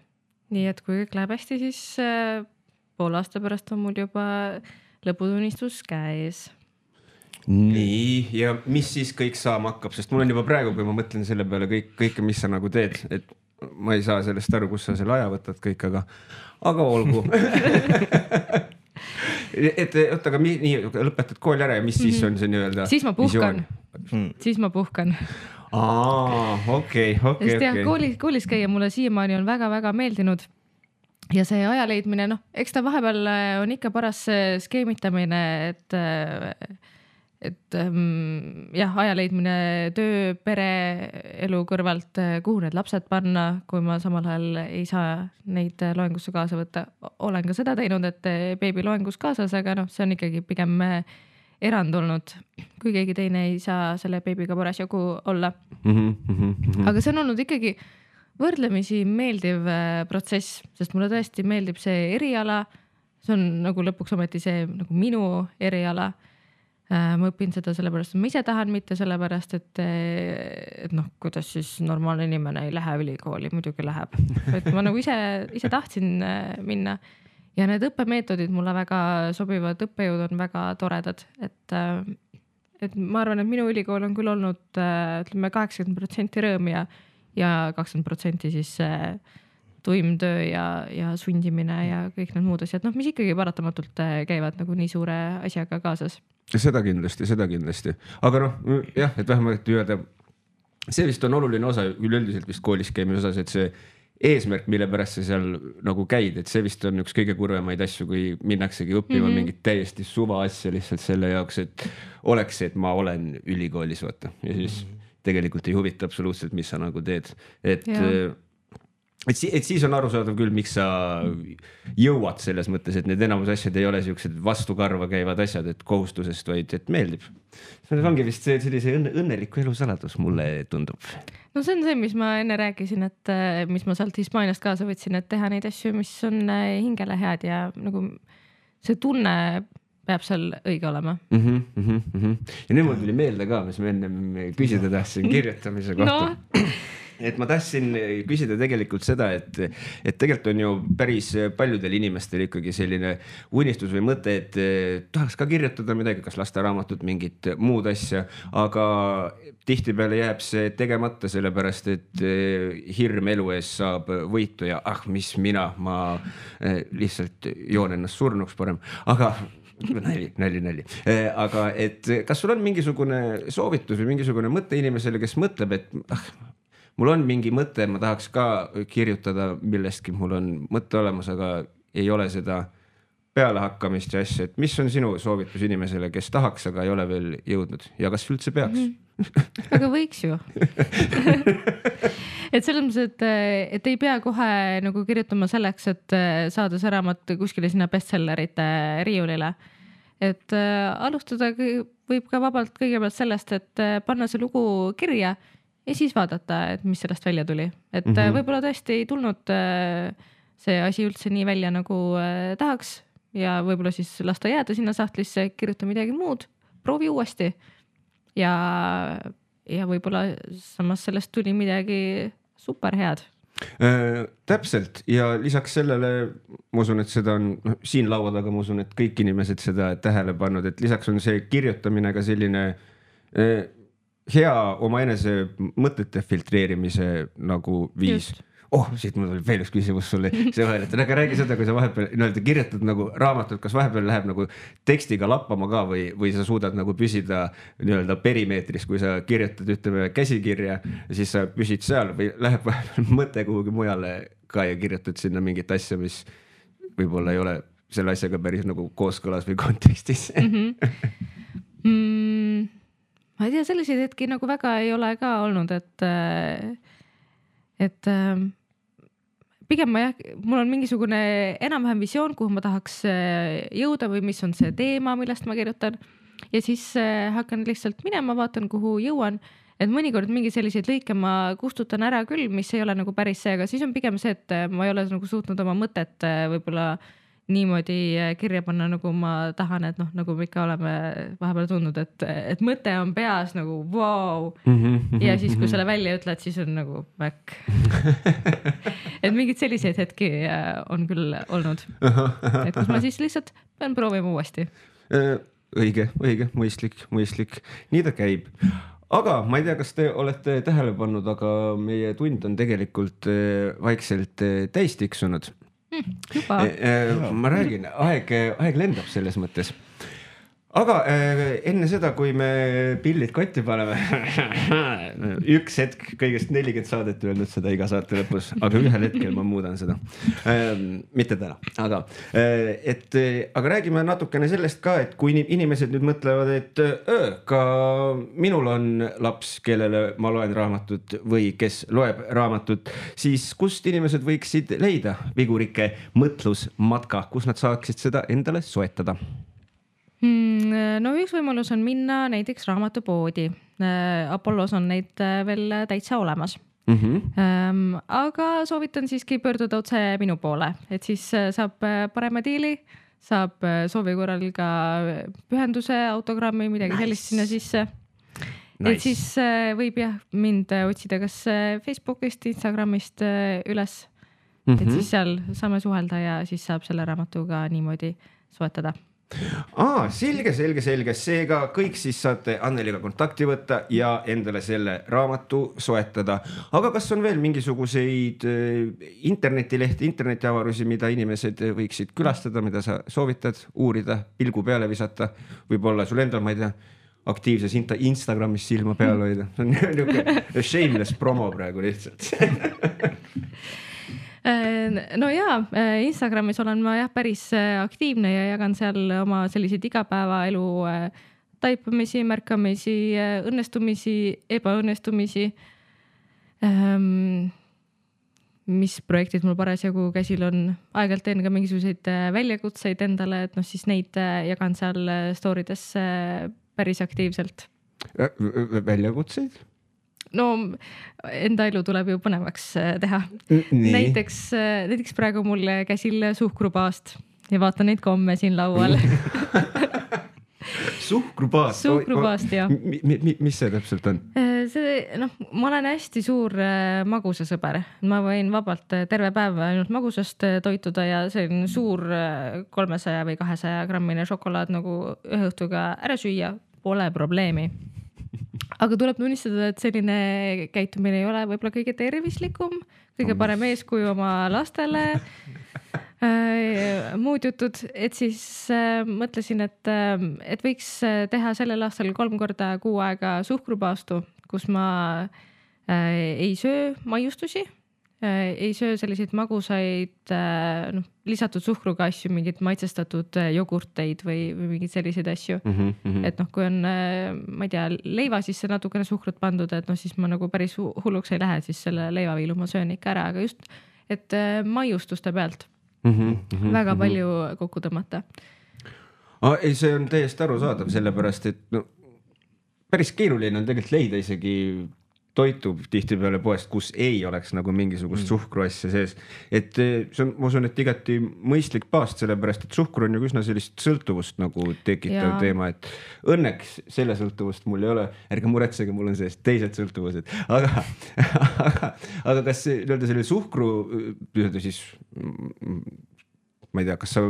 nii et kui kõik läheb hästi, siis poole aasta pärast on mul juba lõputunnistus käes. Nii, ja mis siis kõik saama hakkab, sest mul on juba praegu, kui ma mõtlen selle peale kõike, mis sa nagu teed, et ma ei saa sellest aru, kus sa selle aja võtad kõik, aga olgu. et oota, aga nii lõpetad kooli ära ja mis siis on see nii-öelda siis ma puhkan. Okei. Koolis käia mulle siiamaani on väga-väga meeldinud ja see aja leidmine, eks ta vahepeal on ikka paras skeemitamine, et jah, aja leidmine töö, pere, elu kõrvalt, kuhu need lapsed panna, kui ma samal ajal ei saa neid loengusse kaasa võtta. Olen ka seda teinud, et beebi loengus kaasas, aga see on ikkagi pigem erand olnud, kui keegi teine ei saa selle beebiga parasjagu olla. Aga see on olnud ikkagi võrdlemisi meeldiv protsess, sest mulle tõesti meeldib see eriala. See on nagu lõpuks ometi see nagu minu eriala. Ma õpin seda sellepärast, et ma ise tahan, mitte sellepärast, et kuidas siis normaalne inimene ei lähe ülikooli, muidugi läheb. Et ma nagu ise tahtsin minna ja need õppemeetodid mulle väga sobivad, õppejõud on väga toredad, et ma arvan, et minu ülikool on küll olnud, ütleme 80% rõõm ja 20% siis tuim töö ja sundimine ja kõik need muud asjad, mis ikkagi paratamatult käivad nagu nii suure asjaga kaasas. Seda kindlasti. Aga jah, et vähemalt öelda, see vist on oluline osa üleüldiselt vist koolis käimise osas, et see eesmärk, mille pärast sa seal nagu käid, et see vist on üks kõige kurvemaid asju, kui minnaksegi õppima mingit täiesti suva asja lihtsalt selle jaoks, et oleks, et ma olen ülikoolis, vaata. Ja siis tegelikult ei huvita absoluutselt, mis sa nagu teed. Et siis on arusaadav küll, miks sa jõuad selles mõttes, et need enamus asjad ei ole sellised vastukarva käivad asjad, et kohustusest, vaid et meeldib. See ongi vist sellise õnneliku elu saladus, mulle tundub. No see on see, mis ma enne rääkisin, et mis ma sealt Hispaaniast kaasa võtsin, et teha neid asju, mis on hingele head ja nagu see tunne peab seal õige olema. Ja nüüd mul tuli meelde ka, mis ma enne küsida tahtsin kirjutamise kohta. Et ma tahtsin küsida tegelikult seda, et tegelikult on ju päris paljudel inimestel ikkagi selline unistus või mõte, et tahaks ka kirjutada midagi, kas lasteraamatut, mingit muud asja, aga tihtipeale jääb see tegemata sellepärast, et hirm elu ees saab võitu ja mis ma lihtsalt joon ennast surnuks parem, aga nali. Aga et kas sul on mingisugune soovitus või mingisugune mõte inimesele, kes mõtleb, et mul on mingi mõte, ma tahaks ka kirjutada millestki, mul on mõte olemas, aga ei ole seda pealehakkamist ja asja, et mis on sinu soovitus inimesele, kes tahaks, aga ei ole veel jõudnud ja kas üldse peaks? Aga võiks ju. Et selles mõttes, et ei pea kohe nagu kirjutama selleks, et saada see raamat kuskile sinna bestsellerite riiulile. Et alustada võib ka vabalt kõigepealt sellest, et panna see lugu kirja ja siis vaadata, et mis sellest välja tuli. Et võib-olla tõesti ei tulnud see asi üldse nii välja, nagu tahaks ja võib-olla siis lasta jääda sinna sahtlisse, kirjuta midagi muud, proovi uuesti. Ja võib-olla samas sellest tuli midagi super head. Täpselt ja lisaks sellele ma usun, et seda on siin laua taga, ma usun, et kõik inimesed seda tähele pannud, et lisaks on see kirjutamine ka selline hea oma enese mõtete filtreerimise nagu viis. Just. Siit mul oli veel üks küsimus sulle. Aga räägi seda, kui sa vahepeal kirjutad nagu raamatut, kas vahepeal läheb nagu tekstiga lappama ka või sa suudad nagu püsida perimeetris, kui sa kirjutad ütleme käsikirja ja siis sa püsid seal või läheb vahepeal mõte kuhugi mujale ka ja kirjutad sinna mingit asja, mis võib-olla ei ole selle asjaga päris nagu kooskõlas või kontekstis. Ma ei tea, selliseid hetki nagu väga ei ole ka olnud, et pigem mul on mingisugune enam-vähem visioon, kuhu ma tahaks jõuda või mis on see teema, millest ma kirjutan ja siis hakkan lihtsalt minema, vaatan, kuhu jõuan, et mõnikord mingi selliseid lõike ma kustutan ära küll, mis ei ole nagu päris see, aga siis on pigem see, et ma ei ole nagu suutnud oma mõtet võib-olla niimoodi kirja panna, nagu ma tahan, et noh, nagu me ikka oleme vahepeal tundnud, et mõte on peas nagu vau. Ja siis, kui selle välja ütled, siis on nagu back. Et mingid selliseid hetki on küll olnud. Et kus ma siis lihtsalt pean proovima uuesti. Õige, mõistlik. Nii ta käib. Aga ma ei tea, kas te olete tähele pannud, aga meie tund on tegelikult vaikselt täis tiksunud. Juba. Ma räägin, aeg lendab selles mõttes. Aga enne seda, kui me pillid kotti paneme, üks hetk kõigest 40 saadet öelnud seda iga saate lõpus, aga ühel hetkel ma muudan seda. Mitte täna, aga räägime natukene sellest ka, et kui inimesed nüüd mõtlevad, et ka minul on laps, kellele ma loen raamatut või kes loeb raamatut, siis kust inimesed võiksid leida Vigurike mõtlusmatka, kus nad saaksid seda endale soetada? No üks võimalus on minna näiteks raamatupoodi. Apollos on neid veel täitsa olemas. Aga soovitan siiski pöörduda otse minu poole, et siis saab parema diili, saab soovi korral ka pühenduse, autogrammi, midagi sellist sinna sisse. Et siis võib mind otsida kas Facebookist, Instagramist üles, et siis seal saame suhelda ja siis saab selle raamatuga niimoodi soetada. Selge. Seega kõik siis saate Anneliga kontakti võtta ja endale selle raamatu soetada. Aga kas on veel mingisuguseid internetilehti, internetiavarusi, mida inimesed võiksid külastada, mida sa soovitad uurida, pilgu peale visata? Võib-olla sul endal, ma ei tea, aktiivses Instagramis silma peal hoida. See on niisugune shameless promo praegu lihtsalt. No jaa, Instagramis olen ma päris aktiivne ja jagan seal oma selliseid igapäevaelu taipamisi, märkamisi, õnnestumisi, ebaõnnestumisi. Mis projektid mul parasjagu käsil on. Aegalt teen ka mingisuguseid väljakutseid endale, et siis neid jagan seal storydes päris aktiivselt. Väljakutseid? No enda elu tuleb ju põnevaks teha. Näiteks praegu mul käsil suhkrupaast ja vaatan neid komme siin laual. Suhkrupaast? Suhkrupaast, jah. Mis see täpselt on? Ma olen hästi suur magusasõber. Ma võin vabalt terve päev ainult magusast toituda ja see on suur 300 või 200 grammine šokolaad nagu ühe õhtuga ära süüa. Pole probleemi. Aga tuleb tunnistada, et selline käitumine ei ole võib-olla kõige tervislikum, kõige parem eeskuju oma lastele, muud jutud, et siis mõtlesin, et võiks teha sellel aastal 3 korda kuu aega suhkrupaastu, kus ma ei söö maiustusi, ei söö selliseid magusaid lisatud suhkruga asju, mingid maitsestatud jogurteid või mingid selliseid asju. Et kui on, ma ei tea, leiva sisse natukene suhkrut pandud, et siis ma nagu päris hulluks ei lähe, siis selle leivaviilu ma söön ikka ära, aga just, et maiustuste pealt väga palju kokku tõmmata. Ei, see on täiesti arusaadav, sellepärast, et päris keeruline on tegelikult leida isegi toitu tihtipeale poest, kus ei oleks nagu mingisugust suhkruasja sees. Et see on, ma usun, et igati mõistlik paast, sellepärast, et suhkur on ju üsna sellist sõltuvust nagu tekitav teema, et õnneks selle sõltuvust mul ei ole, ärge muretsege, mul on sellest teised sõltuvused, aga kas selle suhkru siis ma ei tea, kas sa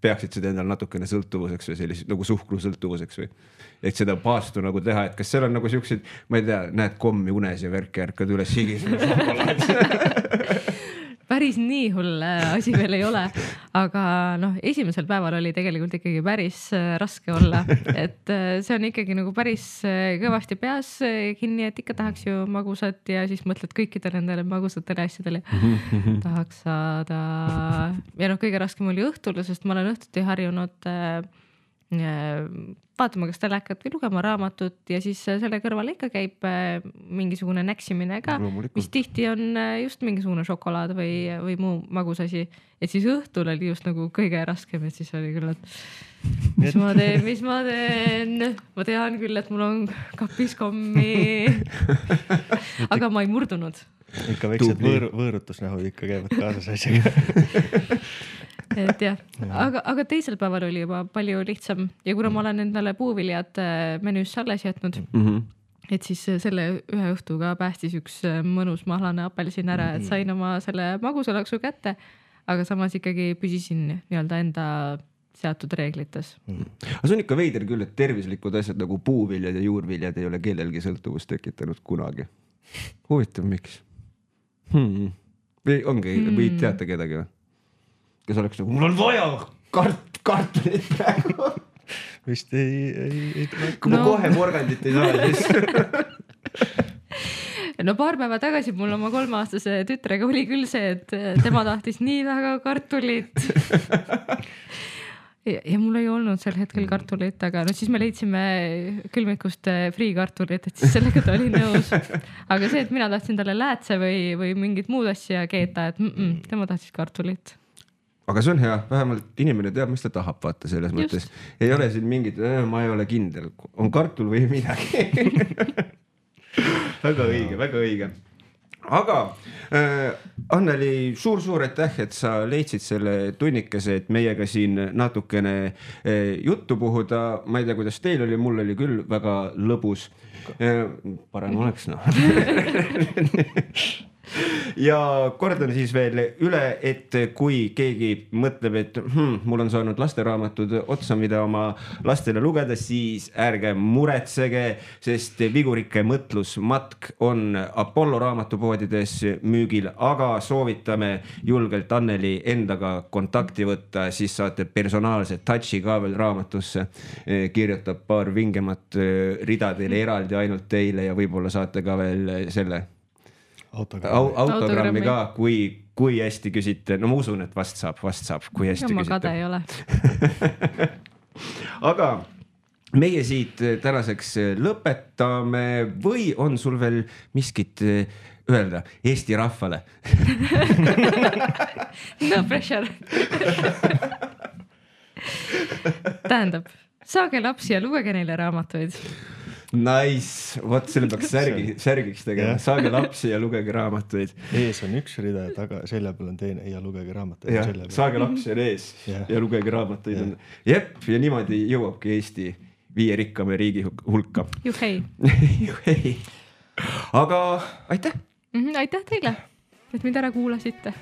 peaksid seda endal natukene sõltuvuseks või sellised nagu suhkru sõltuvuseks või et seda paastu nagu teha, et kas seal on nagu siuksed, ma ei tea, näed kommi unes ja värki ärkad üles higisele šokolaad. Päris nii hull asi veel ei ole, aga esimesel päeval oli tegelikult ikkagi päris raske olla, et see on ikkagi nagu päris kõvasti peas kinni, et ikka tahaks ju magusat ja siis mõtled kõikidele nendele magusatele asjadele. Tahaks saada. Ja kõige raskem oli õhtul, sest ma olen õhtuti harjunud vaatama kas telekat või lugema raamatut ja siis selle kõrval ikka käib mingisugune näksimine ka, mis tihti on just mingisugune šokolaad või muu magusasi. Et siis õhtul oli just nagu kõige raskem, et siis oli küll, et mis ma teen. Ma tean küll, et mul on kapis kommi, aga ma ei murdunud. Ikka väiksed võõrutusnähu ikka käivad kaasas asjaga. et jah, aga teisel päeval oli juba palju lihtsam ja kuna ma olen endale puuviljad menüüsse alles jätnud, et siis selle ühe õhtuga päästis üks mõnus mahlane apelsin ära, et sain oma selle magusalaksu kätte, aga samas ikkagi püsisin nii-öelda enda seatud reeglites. Aga see on ikka veider küll, et tervislikud asjad nagu puuviljad ja juurviljad ei ole kellelgi sõltuvust tekitanud kunagi. Huvitav, miks? Või ongi, või teate kedagi? Kes oleks nagu, mul on vaja kartulit praegu. Vist ei tule. Kui ma kohe porgandit ei saa, siis... No paar päeva tagasi mul oma 3-aastase tütrega oli küll see, et tema tahtis nii väga kartulit. Ja mul ei olnud sel hetkel kartulit, aga no siis me leidsime külmikust friikartulit, et siis sellega ta oli nõus. Aga see, et mina tahtsin talle läätse või mingit muud asja keeta, et tema tahtis kartulit. Aga see on hea, vähemalt inimene teab, mis ta tahab, vaata selles mõttes. Ei ole siin mingit, ma ei ole kindel, on kartul või midagi. Väga õige, väga õige. Aga Anneli, suur aitäh, et sa leidsid selle tunnikese, et meiega siin natukene juttu puhuda. Ma ei tea, kuidas teil oli, mul oli küll väga lõbus. Parem oleks, Ja kordan siis veel üle, et kui keegi mõtleb, et mul on saanud lasteraamatud otsa, mida oma lastele lugeda, siis ärge muretsege, sest Vigurike mõtlusmatk on Apollo raamatupoodides müügil, aga soovitame julgelt Anneli endaga kontakti võtta, siis saate personaalse touchi ka veel raamatusse, kirjutab paar vingemat rida teile eraldi ainult teile ja võib-olla saate ka veel selle autogrammi ka, kui hästi küsite. No ma usun, et vast saab, kui hästi ma küsite. kade ei ole. Aga meie siit tänaseks lõpetame või on sul veel miskit öelda Eesti rahvale? No pressure. Tähendab, saage lapsi ja lugege neile raamatuid. Nice, vot selle peaks särgiks tegema, saage lapsi ja lugege raamatuid. Ees on üks rida ja taga selja peal on teine ja lugege raamatuid. Saage lapsi on ees ja lugege raamatuid. Jep, ja niimoodi jõuabki Eesti 5 rikkame riigi hulka. Juhei. Aga aitäh! Aitäh teile, et mind ära kuulasite.